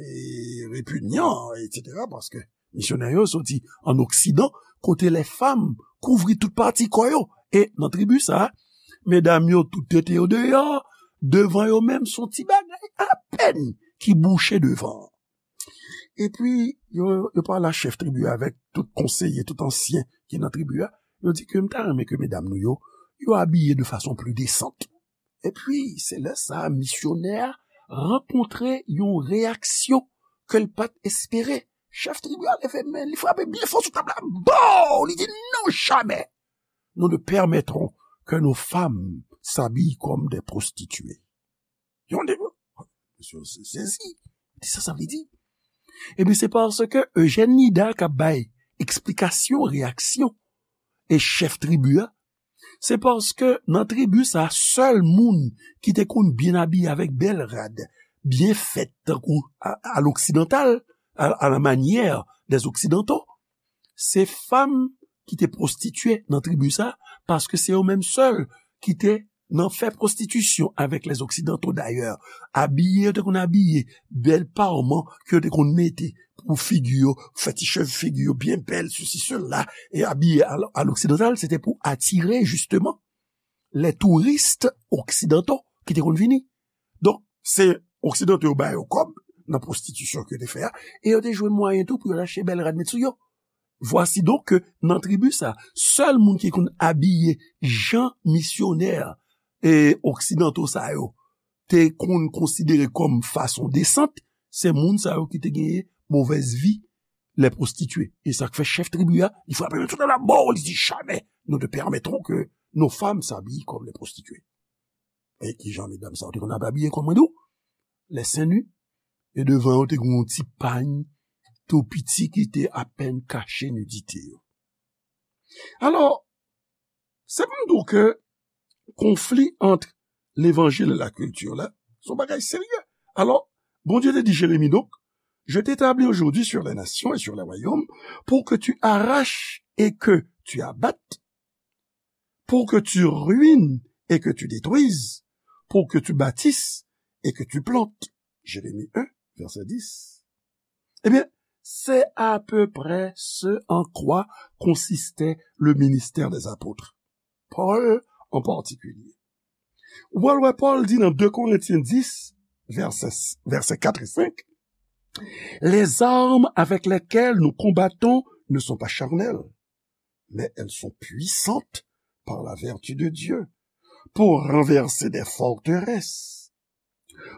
repinyan, etsetera, paske misyonè yo soti an Oksidan, kote lè fanm kouvri tout pati kò yo. E nan tribi sa a, medam yo tout tete yo deyò, devan yo menm se yon ti bagay apèn ki bouche devan. Epi, yo, yo pale a chèf tribi a avèk tout konseye, tout ansyen ki nan tribi a. Yo di ke m ta renmen ke medam nou yo, yo abiye de fason pli desant. Epi, se lè sa a, misyonè a rankontre yon reyaksyon ke l pa t espere. Chèf tribi a leve men, li frape byen fò sou tab la. Bow! Li di, non, jamais nous ne permettrons que nos femmes s'habillent comme des prostituées. Yon de, misye sezi. Di sa, sa vle di? Ebyen, se paske Eugène Nida k ap bay eksplikasyon, reyaksyon e chèf tribi a, se paske nan tribi sa, sèl moun ki te konn byen abiye avèk bèl rad, byen fèt, tankou a, a loksidantal, à, à la manière des occidentaux, se fanm ki te pwostitye nan tribi sa, paske se yo menm sèl ki te nan fè pwostitisyon avèk lèzoksidanto dayè. Abiye, yo te konn abiye, bèl parman ke yo te konn mete pou figi yo, fè ti cheve figi yo byen bèl, sesi, sela, e abiye a, a loksidantal, se te pou atire, jisteman, les touristes occidentaux ki te konn vini. Donk, se oksidanto yo ba yo kòb nan pwostitisyon ke yo te fè a, e yo te jwenn mwayen tou pou yo achte bèl rad met sou yo. Vwasi donk ke nan tribi sa, sèl moun ki konn abiye jan misyonè e oksidanto sa yo te konn konsidere kòm fason desant, se moun sa yo ki te genyen movèz vi, les prostituées. E sa k fè chèf tribi a, li frape men tout la mò, li di, jamais nous ne permettrons que nos femmes s'habillent comme les prostituées. E ki jan medam sa yo te konn ap abiye, kòm mwen di w, les seins nus, e devan yo te gen yon ti pany tou piti ki te apèn kache nidite yo. Alò, se pou m di w ke konfli ant levanjil e lakilti la, se yon bagay serye. Alò, Bondye te di Jeremi, donc, je t'établis aujourd'hui sur les nations et sur les royaumes pour que tu arraches et que tu abattes, pour que tu ruines et que tu détruises, pour que tu bâtisses et que tu plantes. Jérémie un, verset dix. Ebyen, c'est à peu près ce en quoi consistait le ministère des apôtres. Paul en particulier. Ou pral wè Paul di nan deux Corinthiens dix, verset, verset quatre et cinq, les armes avec lesquelles nous combattons ne sont pas charnelles, mais elles sont puissantes par la vertu de Dieu pour renverser des forteresses.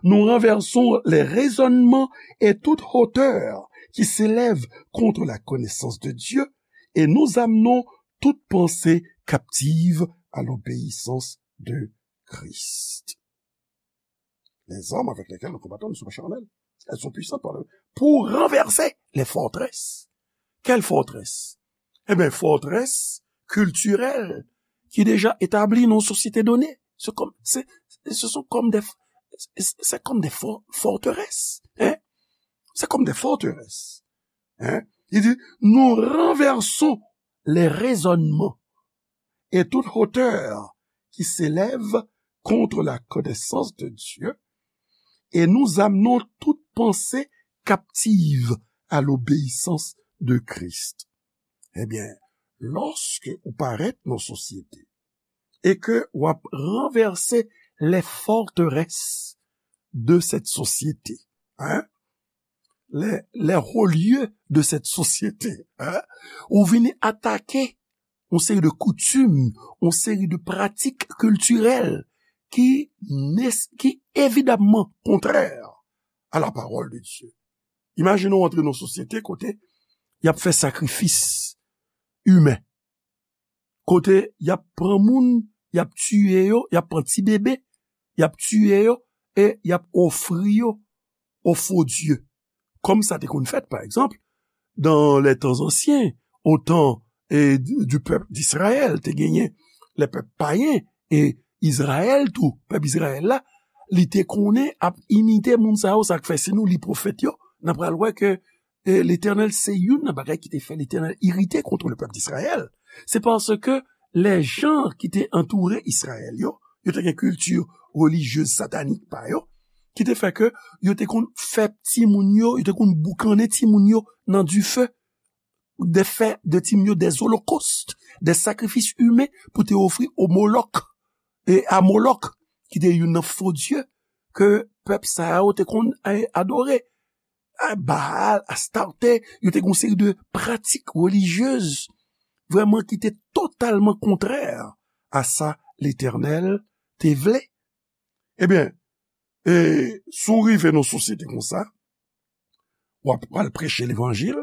Nous renversons les raisonnements et toute hauteur qui s'élève contre la connaissance de Dieu, et nous amenons toute pensée captive à l'obéissance de Christ. Les armes avec lesquelles nous combattons ne sont pas charnelles. Elles sont puissantes par le, pour renverser les forteresses. Quelle forteresse? Eh bien, forteresse culturelle ki deja etabli nan yon sosyete done. Se kòm, se, se sont comme des, c'est comme des for-, forteresses. Hein? C'est comme des forteresses. Hein? Il dit, nous renversons les raisonnements et toute hauteur qui s'élève contre la connaissance de Dieu, et nous amenons toute pensée captive à l'obéissance de Christ. Ebyen, lòske ou parèt nan sosyete e ke w ap ranvèse les forteresses de cette société, hein? Les, les hauts lieux de cette société, hein? Ou vini atake yon seri de koutim, yon seri de pratik kiltirèl ki nes-, ki evidamman kontrè à la parole de Dieu. Imajine w antre nan yon sosyete kote y ap fè sakrifis imen, kote y ap pran moun, y ap tiye yo, y ap pran ti bebe, y ap tiye yo e y ap ofri yo o fo dye. Kòm sa te konn fèt, pa egzanp, dans les temps anciens, au temps, eh, du, du peuple d'Israël, te genyen lè pèp payen, e Izrayèl tou, pèp Izrayèl la, li te konnen ap imite moun sa yo, sa k fè si nou li pwofèt yo, n a pral wè ke, eh, Letènèl se youn nan bagay ki te fè Letènèl irite kont le pèp d'Israël. Se paske lè jan ki te antoure Izrayèl yo, yo te gen kilti relijyez satanik pa yo, ki te fè ke yo te konn fè timoun yo, yo te konn boukannen timoun yo nan dife, de fè de timoun yo des holocaustes, des sacrifices humains pou te ofri o Molok, e a Molok, ki te youn nan fo dye ke pèp sa yo te konn, eh, adore. A Baal, Astarte, yo te gen yon seri de pratik relijyez vrèman ki te totalman kontrè a sa Letènèl te vle. Ebyen, e, si w rive nan yon sosyete konsa, w ap pral preche levanjil,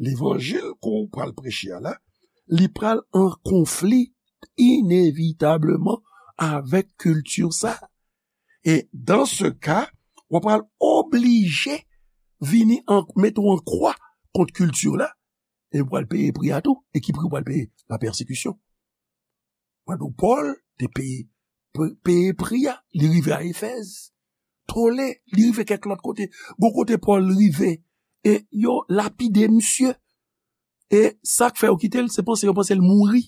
levanjil ke w pral preche a la, li pral an konfli inevitableman avèk kilti sa. E dans ce cas, w ap pral oblije vini an, mete w an kwa kont kilti la, e w pral peye pri a tou. E ki pri w pral peye? La pèsekisyon. Mwen di w, Pòl te peye, pe-, peye pri a. Li rive a Efèz. Tole, li rive kèk lòt kote. Gon kote Pòl rive, e yo lapide misye. E sa k fè yo kite l, se panse yo panse l mouri.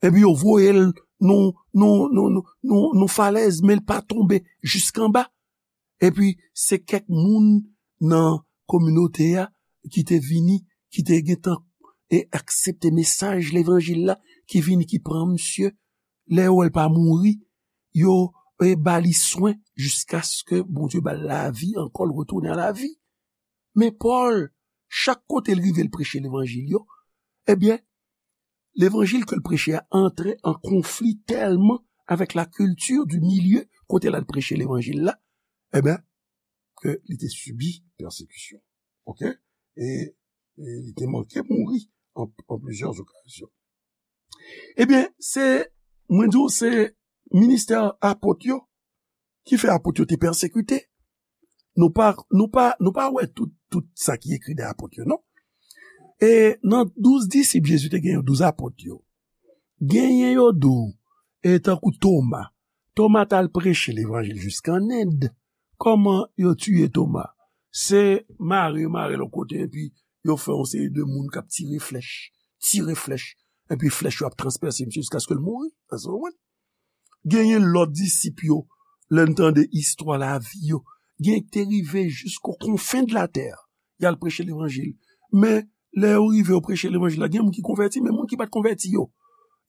Epi yo voye l nan, nan, nan, nan, nan, nan falèz, men l pa tonbe jiskanba. Epi se kèk moun nan kominote a ki te vini, ki te gentan e aksepte mesaj levanjil la, ki vini, ki pran misye. Lè yo wè l pa mouri, yo, e, ba li swen jiskaske Bondye ba l lavi ankò, l retounen a lavi. Men Pòl, chak kote l rive, l preche levanjil yo, ebyen, levanjil ke l preche a antre an konfli tèlman avèk la kilti di milye kote l al preche levanjil la, ebyen, ke li te sibi pèsekisyon. Oke? E, e li te manke mouri an, an plizyè okazyon. Ebyen, se, mwen di w, se ministè apot yo ki fè apot yo te pèsekite. Nou pa, nou pa, nou pa wè tout, tout sa ki ekri de apot yo, non. E nan douz disip Jezi te genyen, douz apot yo. Genyen yo di w, e tankou Toma. Toma t al preche levanjil jiska an End. Kòman yo tiye Toma? Se mare, mare l yon kote, epi yo fè yon seri de moun k ap tire flèch, tire flèch, epi flèch yo ap transpèse misye jiskaske l mouri. Èske w konprann? Genyen lòt disip yo, lè n tande istwa lavi yo, gen ki te rive jisko konfen de latè, y al preche levanjil. Men, lè yo rive, yo preche levanjil la, gen moun ki konvèti, men moun ki pa t konvèti yo,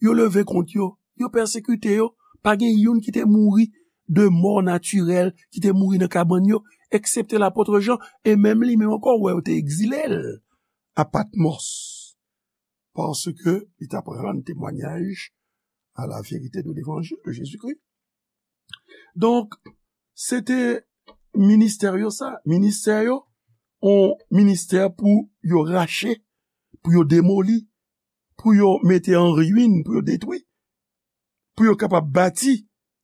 yo leve kont yo, yo pèsekite yo. Pa gen youn ki te mouri de mò natirèl, ki te mouri nan kabann yo, eksepte lapot Jan, e menm li menm ankò, ou wè, yo te egzile l a Patmòs, paske li t ap rann temwayaj a la verite de levanjil de Jezikri. Donk, se te ministè yo sa, ministè yo, yon ministè pou yo rache, pou yo demoli, pou yo mete an ruin, pou yo detwi, pou yo kapab bati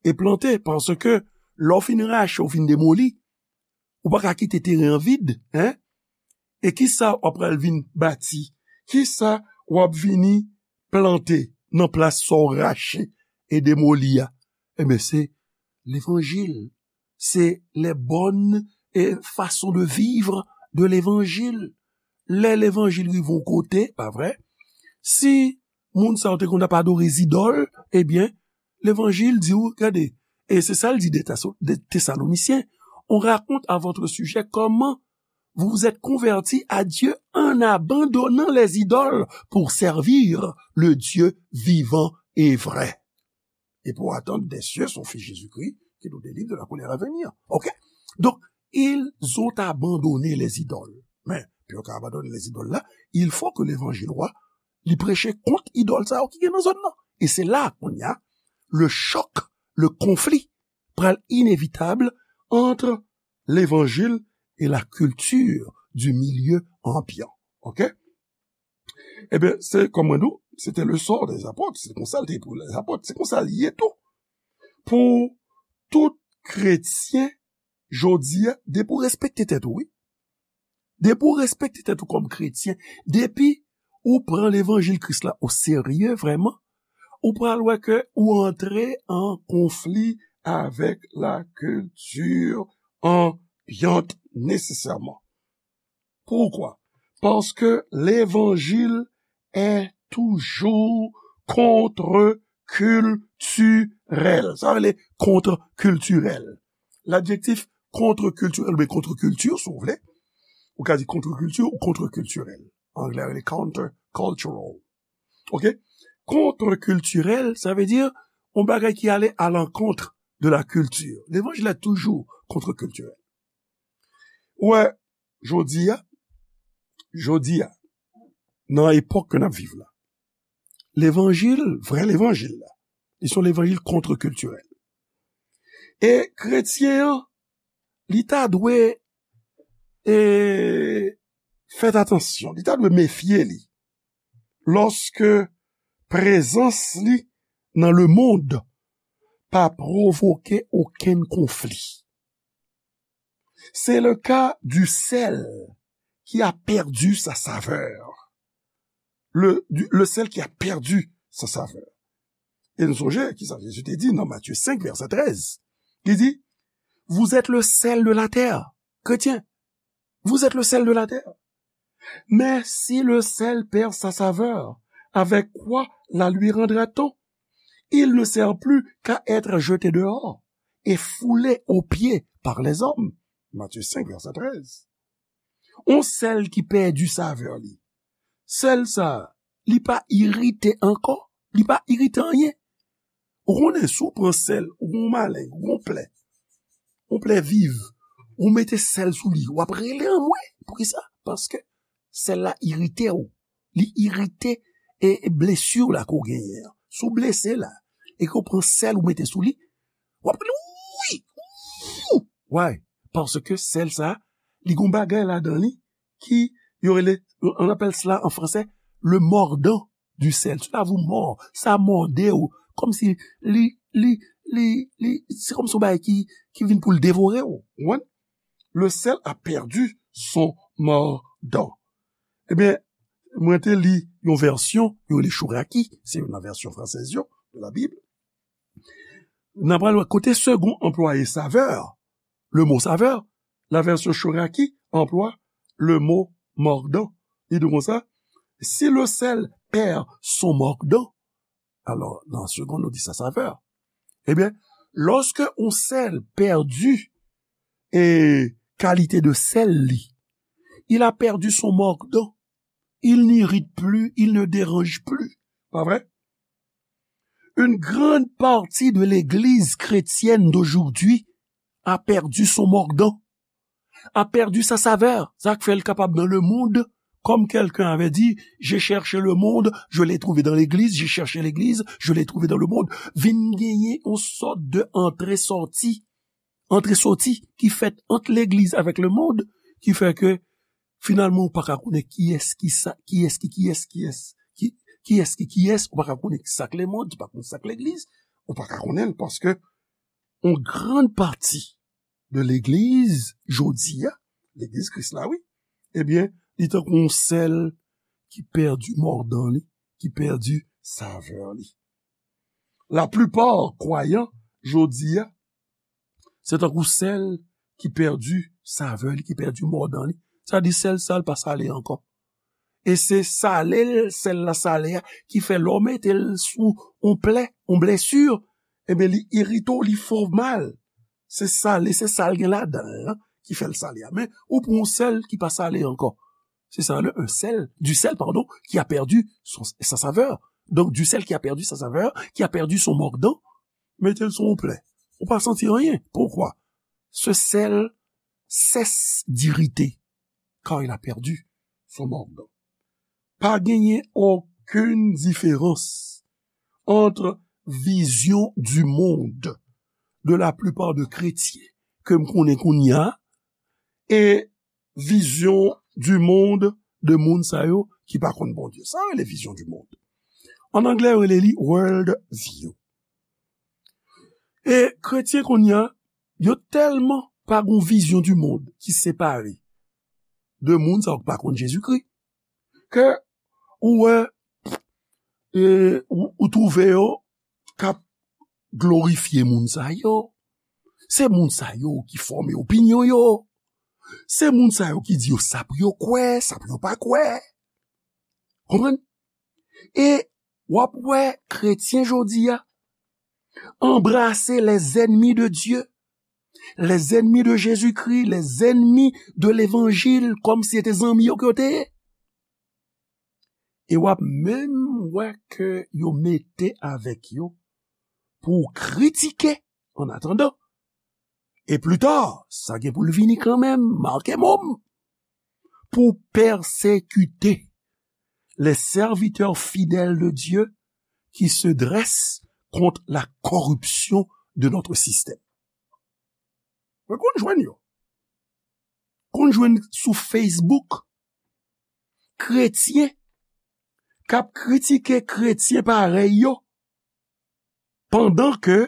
e plante, paske lè w fin rache, w fin demoli, ou pa ka kite teren an vid, en? E kisa w ap pral vin bati? Kisa w ap vini plante nan plas sa w rache e demoli a? Ebyen, se levanjil. Se les bonnes, eh, façons de vivre de l'évangile. Lè levanjil rive yon kote, pa vre? Si moun sa yo te konn ap adore zidòl, ebyen, levanjil di w, gade, e se sa l di de Taso-, de Tesalonisyen, on raconte à votre sujet comment vous vous êtes convertis à Dieu en abandonnant les idoles pour servir le Dieu vivant et vrai. Et pour attendre des cieux son Fils Jésus-Christ, qui nous délivre de la colère à venir. Ok? Donc, ils ont abandonné les idoles. Men, pou yo ka abandone lèzidòl la, il faut que levanjil wa, li preche kont idòl sa yo ki gen nan zòn nan. E se la, kounye a, le choc, le conflit pral inevitab entre l'évangile et la culture du milieu ambiant. Ok? Ebyen, se, kòm mwen di w, se te le sort des apôtres. Se konsa l te pou lèzapòt. Se konsa l ye tou. Pou tout kretyen, jodi a, depi w respekte tèt ou, wi. Depi w respekte tèt ou kòm kretyen, depi ou pran levanjil Kris la oserye vrèman, ou pral wè ke ou antre an konfli avèk lakilti anbyant nesesèman. Poukwa? Paske levanjil est toujours contre-culturel. Sa vle kontrekiltirèl. Ladjektif kontrekiltirèl oubyen kontrekilti, si w vle. Ou ka di kontrekilti ou kontrekiltirèl. Anglè rele countercultural. Oke? Kontrekiltirèl, sa vle di yon bagay ki ale à l'encontre de la culture. Levanjil la toujou kontrekiltirèl. Ou wè, jodi a, jodi a, nan epòk ke n ap viv la, levanjil, vrè levanjil la, li se yon levanjil kontrekiltirèl. E kretyen an, li ta dwe, e, fè atansyon, li ta dwe mefye li lòske prezans li nan lemonn pa pwovoke okenn konfli. C'est le cas du sel qui a perdu sa saveur. Le, du- le sel qui a perdu sa saveur. E nou sonje ki sa Jezi te di nan Matye senk, vèsè trèz. Li di, Vous êtes le sel de la terre. Kretyen, vous êtes le sel de la terre. Mais si le sel perd sa saveur, avec quoi la lui rendra-t-on? Il ne sert plus qu'à être jeté dehors et foulé aux pieds par les hommes. Matthieu cinq, verset treize. On sel ki pèdi savè li. Sel sa, li pa irite ankò. Li pa irite anyen. Ou konnen, si w pran sèl, ou gon maleng, ou gon plè, yon plè viv, ou mete sèl sou li, w ap rele anmwe. Poukisa? Paske sèl la irite w. Li irite e, e blesi w la ke w genyen an. Si w blese la, e ke w pran sèl ou mete sou li, w ap rele, wi! Why? Paske sèl sa, li gon bagay ladan li ki yo rele, on appelle cela en français le mordant du sel. Cela vous mord, sa mòde w. Kòmsi li, li, li, li, se kòmsi yon bagay ki, ki vin pou l devore w. Ou konprann? Le sel a perdu son mordant. Ebyen, mwen te li yon vèsyon, yo rele Chouraki, se youn nan vèsyon fransèz yo, de la Bib. N a pral wè kote Segond anplwaye savè, le mo savè, la version Chouraki emploie le mot mordant. Li di konsa, si le sel perd son mordant, alò, nan Segond, nou di sa savè. Ebyen, lòske yon sèl pèdi e kalite de sèl li, il a perdu son mordant. Il n'irrite plus, il ne dérange plus. Pas vrai? Une grande partie de l'église chrétienne d'aujourd'hui a perdu son mordant, a perdu sa savè. Sa k fè l kapab dans le monde, comme quelqu'un avait dit, j'ai cherché le monde, je l'ai trouvé dans l'église, j'ai cherché l'église, je l'ai trouvé dans le monde. Vin genyen yon sòt de antre sòti, antre sòti ki fèt ant legliz avèk le monde, ki fè ke finalman ou pa ka konnen kiyès ki sa, kiyès ki kiyès, kiyès ki, kiyès ki kiyès, ou pa ka konnen sa k le monde, ou pa konnen sa k legliz, ou pa ka konnen l paske yon grann pati de legliz jodi a, legliz Kris la, wi, ebyen, li tankou yon sèl ki pèdi mòdan li, ki pèdi savè li. Laplipa kwayan jodi a, se tankou sèl ki pèdi savè li, ki pèdi mòdan li. Sa di sèl sa l pa sale ankò. E se sale l, sèl la sale a, ki fè lè w mete l sou yon plè, yon blesi, ebyen, li irite w, li fè w mal. Se sale, se sa l gen ladan l lan ki fè l sale a. Men, ou pran yon sèl ki pa sale ankò. Se sa, le, un sel, du sel, pardon, qui a perdu son, sa saveur. Donc, du sel qui a perdu sa saveur, qui a perdu son mordant, mete l sou yon plè. Ou pa santi anyen. Poukwa? Ce sel cesse d'irriter, car il a perdu son mordant. Pa genyen okenn diferans entre vision du monde de la plupart de kretyen ke m konnen kounye a e vision du monde de moun sa yo ki pa konn Bondye. Sa rele vision du monde. An anglè, yo rele li world view. E kretyen kounye a, yo tèlman pa gon vision du monde ki separe de moun sa yo ki pa konn Jezikri. Ke ou wè, e, ou, ou twouve yo k ap glorifye moun sa yo. Se moun sa yo ki fòme opinyon yo. Se moun sa yo ki di yo sa pou yo kwè, sa pou yo pa kwè. Konprann? E w ap wè kretyen jodi a anbrase les ennemis de Dieu, les ennemis de Jésus-Christ, les ennemis de l'évangile, kòmsi se te zanmi yo ke yo te ye. E w ap menm wè ke yo mete avèk yo pou w kritike an atandan. E pli ta, sa gen pou l vini kanmenm, make mo m, pou pèsekite les serviteurs fidèles de Dieu qui se dressent contre la corruption de notre système. Mwen konn jwenn yo. Konn jwenn sou Facebook kretyen k ap kritike kretyen parèy yo, pandan ke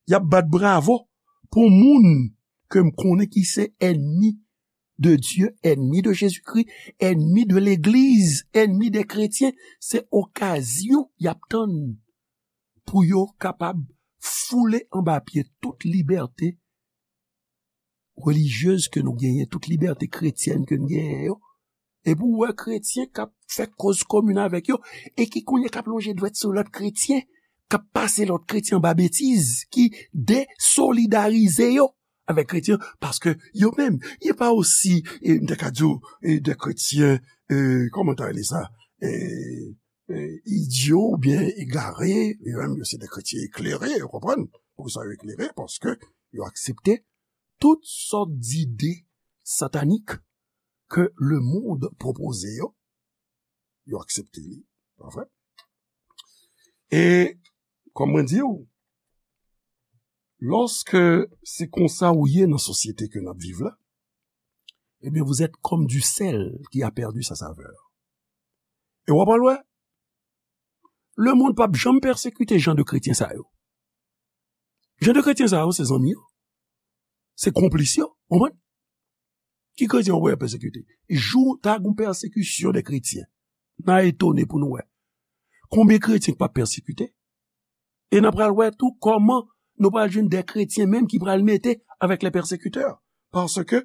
y ap bat bravo pou moun ke m konnen ki se ènmi de Dye, ènmi de Jezikri, ènmi de legliz, ènmi de kretyen. Se okazyon y ap tann pou yo kapab foule anba pye tout libète relijyez ke nou genyen, tout libète kretyèn ke nou genyen yo. Epi w wè kretyen k ap fè koz komin avèk yo, e ki kounye k ap lonje dwèt sou lòt kretyen, k ap pase lòt kretyen anba betiz, ki desolidarize yo avèk kretyen, paske yo menm, yo pa osi, e, m te ka di w, e, de kretyen, e, kòman ta rele sa? E, e, idyo oubyen egare, yo menm, yo se de kretyen eklere, ou konprann? Poukisa yo eklere? Paske yo aksepte tout sòt dide satanik ke lemonn pwopoze yo, yo aksepte li, pa vre? E, kòm mwen di w, lòske se konsa ou ye nan sosyete ke n ap viv la, ebyen, vous êtes comme du sel qui a perdu sa saveur. E w ap al wè, lemonn p ap janm pèsekite jan de kretyen sa yo. Jan de kretyen sa yo, se zanmi yo. Se konplis yo, w konprann? Ki kretyen w wè pèsekite? Jou ta gon pèsekisyon de kretyen, n a etone pou nou wè. Konbyen kretyen k p ap pèsekite? E n a pral wè tou kòman nou pral jwenn de kretyen menm ki pral mete avèk les persécuteurs. Paske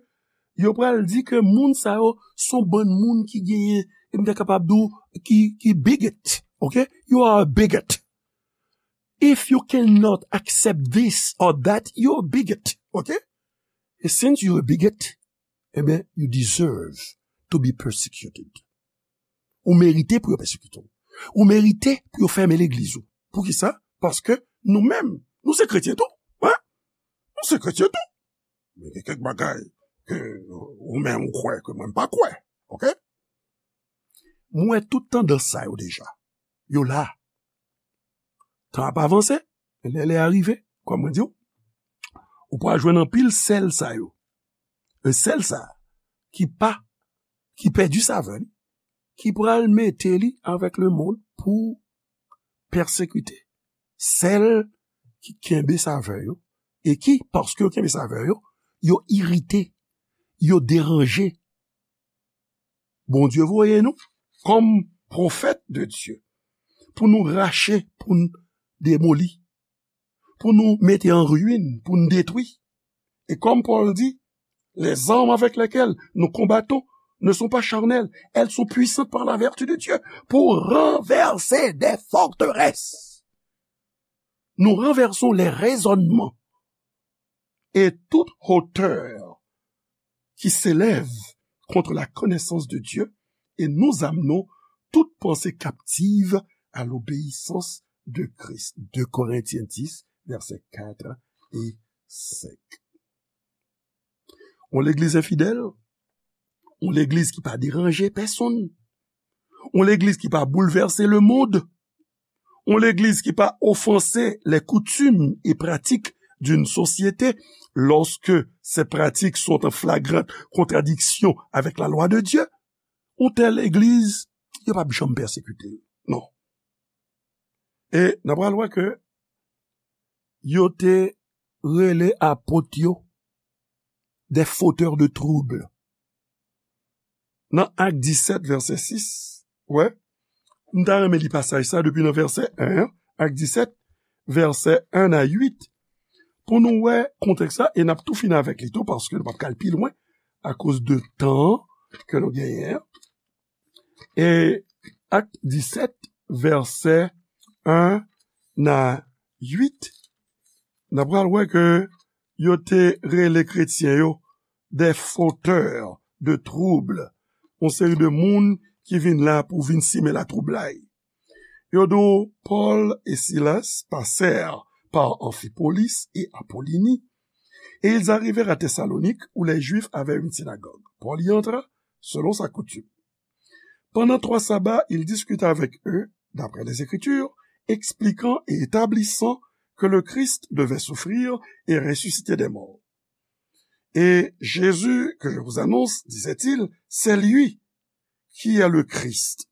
yo pral di ke moun sa yo se yon bann moun ki genyen, e m ta kapab di w, ki, ki bigot. Ok? You are a bigot. If you cannot accept this or that, you're a bigot. Ok? And since you're a bigot, ebyen, you deserve to be persecuted. Ou merite pou yo pèsekite w. Ou merite pou yo fèmen legliz ou. Poukisa? Paske nou menm, nou se kretyen tou. Wi. Nou se kretyen tou. Men gen kèk bagay ke ou menm ou kwè ke mwen m pa kwè. Ok? Mwen wè tout tandans sa yo deja. Yo la. Tan ap avanse, lè lè a rive, kòm mwen di w, ou pral jwenn anpil sèl sa yo. E sèl sa ki pa, ki pèdi savè li, ki pral mete li avèk lemonn pou pèsekite sèl ki kenbe savè yo, e ki, paske yo kenbe savè yo, yo irite, yo deranje. Bondye voye nou kòm pwofèt de Dye pou nou rache, pou n demoli, pou nou mete an ruin, pou n detwi. E kòm Pòl di, les armes avec lesquelles nous combattons ne sont pas charnelles, elles sont puissantes par la vertu de Dieu pour renverser des forteresses. Nous renversons les raisonnements et toute hauteur qui s'élève contre la connaissance de Dieu, et nous amenons toute pensée captive à l'obéissance de Christ. Deux Corinthiens dix, versets quatre et cinq. Yon legliz enfidèl, yon legliz ki pa deranje pèsonn, yon legliz ki pa boulvèse lemonn, yon legliz ki pa ofanse les coutumes et pratiques d'une société lorsque ces pratiques sont en flagrante contradiction avec la loi de Dieu, yon tèl legliz, yo p ap janm pèsekite l. Non. E n a pral wè ke yo te rele apot yo des fauteurs de trouble. nan Ak disèt, vèsè sis, wè, m ta renmen li pasaj sa depi nan vèsè en an, Ak disèt, vèsè en a uit, pou nou wè kontèks la, e n ap tou fini avèk li tou, paske nou p ap ka al pi lwen akoz de tan ke nou genyen an. E Ak disèt, vèsè en a uit, n ap pral wè ke yo te rele kretyen yo des fauteurs de troubles, yon seri de moun ki vin la pou vin simen latwoublay. Yo di w, Paul et Silas passèrent par Amphipolis et Apollonie, et ils arrivèrent à Thessalonique, où les Juifs avaient une synagogue. Paul y entra, selon sa coutume. Pendant trois sabbats, il discuta avec eux, d'après les Écritures, expliquant et établissant que le Christ devait souffrir et ressusciter des morts. Et Jésus que je vous annonce, disait-il, c'est lui qui est le Christ.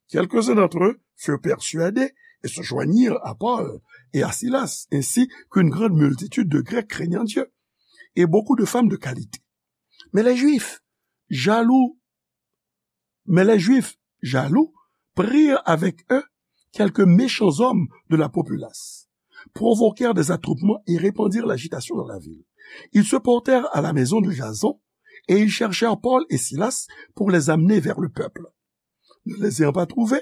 Quelques-uns d'entre eux furent persuadés et se joignirent à Paul et à Silas, ainsi qu'une grande multitude de Grecs craignant Dieu, et beaucoup de femmes de qualité. Mais les Juifs, jaloux, mais les Juifs, jaloux, prirent avec eux quelques méchants hommes de la populace, provoquèrent des attroupements et répandirent l'agitation dans la ville. Ils se portèrent à la maison de Jason et ils cherchèrent Paul et Silas pour les amener vers le peuple. Ne les ayant pas trouvés,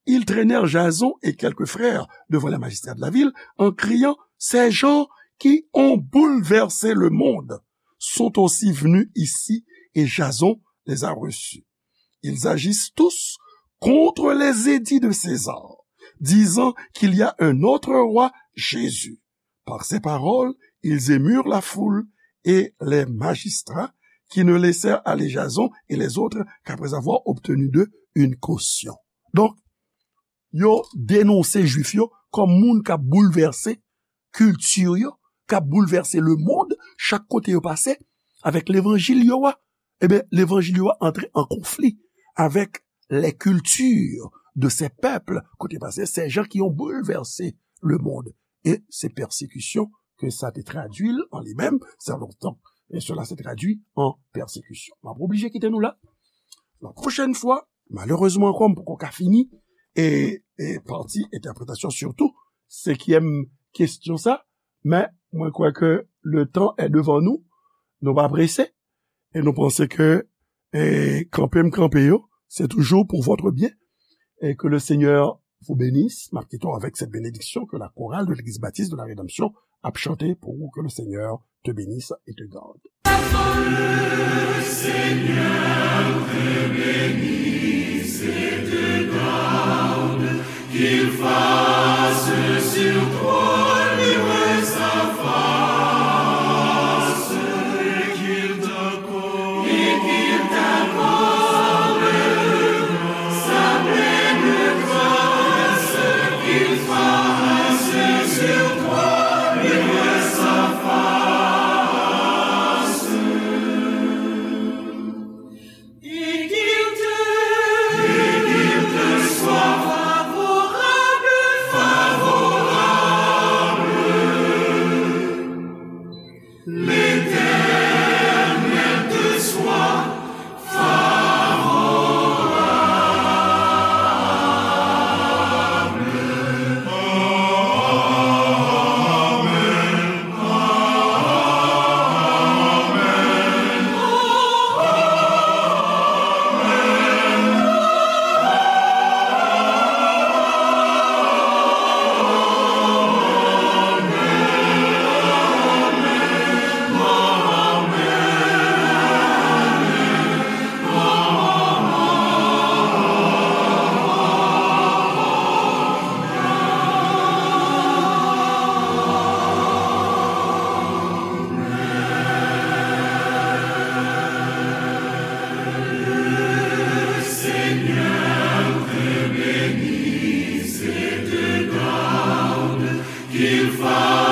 ils traînèrent Jason et quelques frères devant les magistrats de la ville en criant : « Ces gens qui ont bouleversé le monde sont aussi venus ici et Jason les a reçus. Ils agissent tous contre les édits de César, disant qu'il y a un autre roi, Jésus. » Par ces paroles, ils émurent la foule et les magistrats qui ne laissèrent aller Jason et les autres qu'après avoir obtenu d'eux une caution. Donk, yo denonse Jwif yo kòm moun k ap boulvèse kilti yo, k ap boulvèse lemonn, chak kote yo pase, avèk levanjil yo a. Ebyen, levanjil yo a antre an konfli avèk les cultures de ces peuples, kote pase, ces gens qui ont bouleversé le monde. E se pèsekisyon ke sa te tradui l an li menm, sa lontan. E cela se traduit en persécution. M ap oblije kite nou la. La pwochèn fwa, malerezman ankò, m poko ka fini, e, e pati entèpretasyon sitou, senkyèm kesyon sa, men mwen kwè ke le temps est devant nous, nou pa prese, e nou panse ke, e, kanpe m kanpe yo, c'est toujours pour votre bien, et que le Seigneur vous bénisse. M ap kite w avèk cette bénédiction que la chorale de l'Église Baptiste de la Rédemption ap chante pour vous, que le Seigneur te bénisse et te garde. Le Seigneur te bénisse et te garde, qu'il fasse sur toi luire sa face, et qu'il t'accorde, et qu'il t'accorde sa pleine grâce, qu'il fasse sur toi luire sa face. Et qu'il te, et qu'il te soit favorable, favorable. L'Éternel te soit favorable. Amen. Le Seigneur te bénisse et te garde, qu'il fasse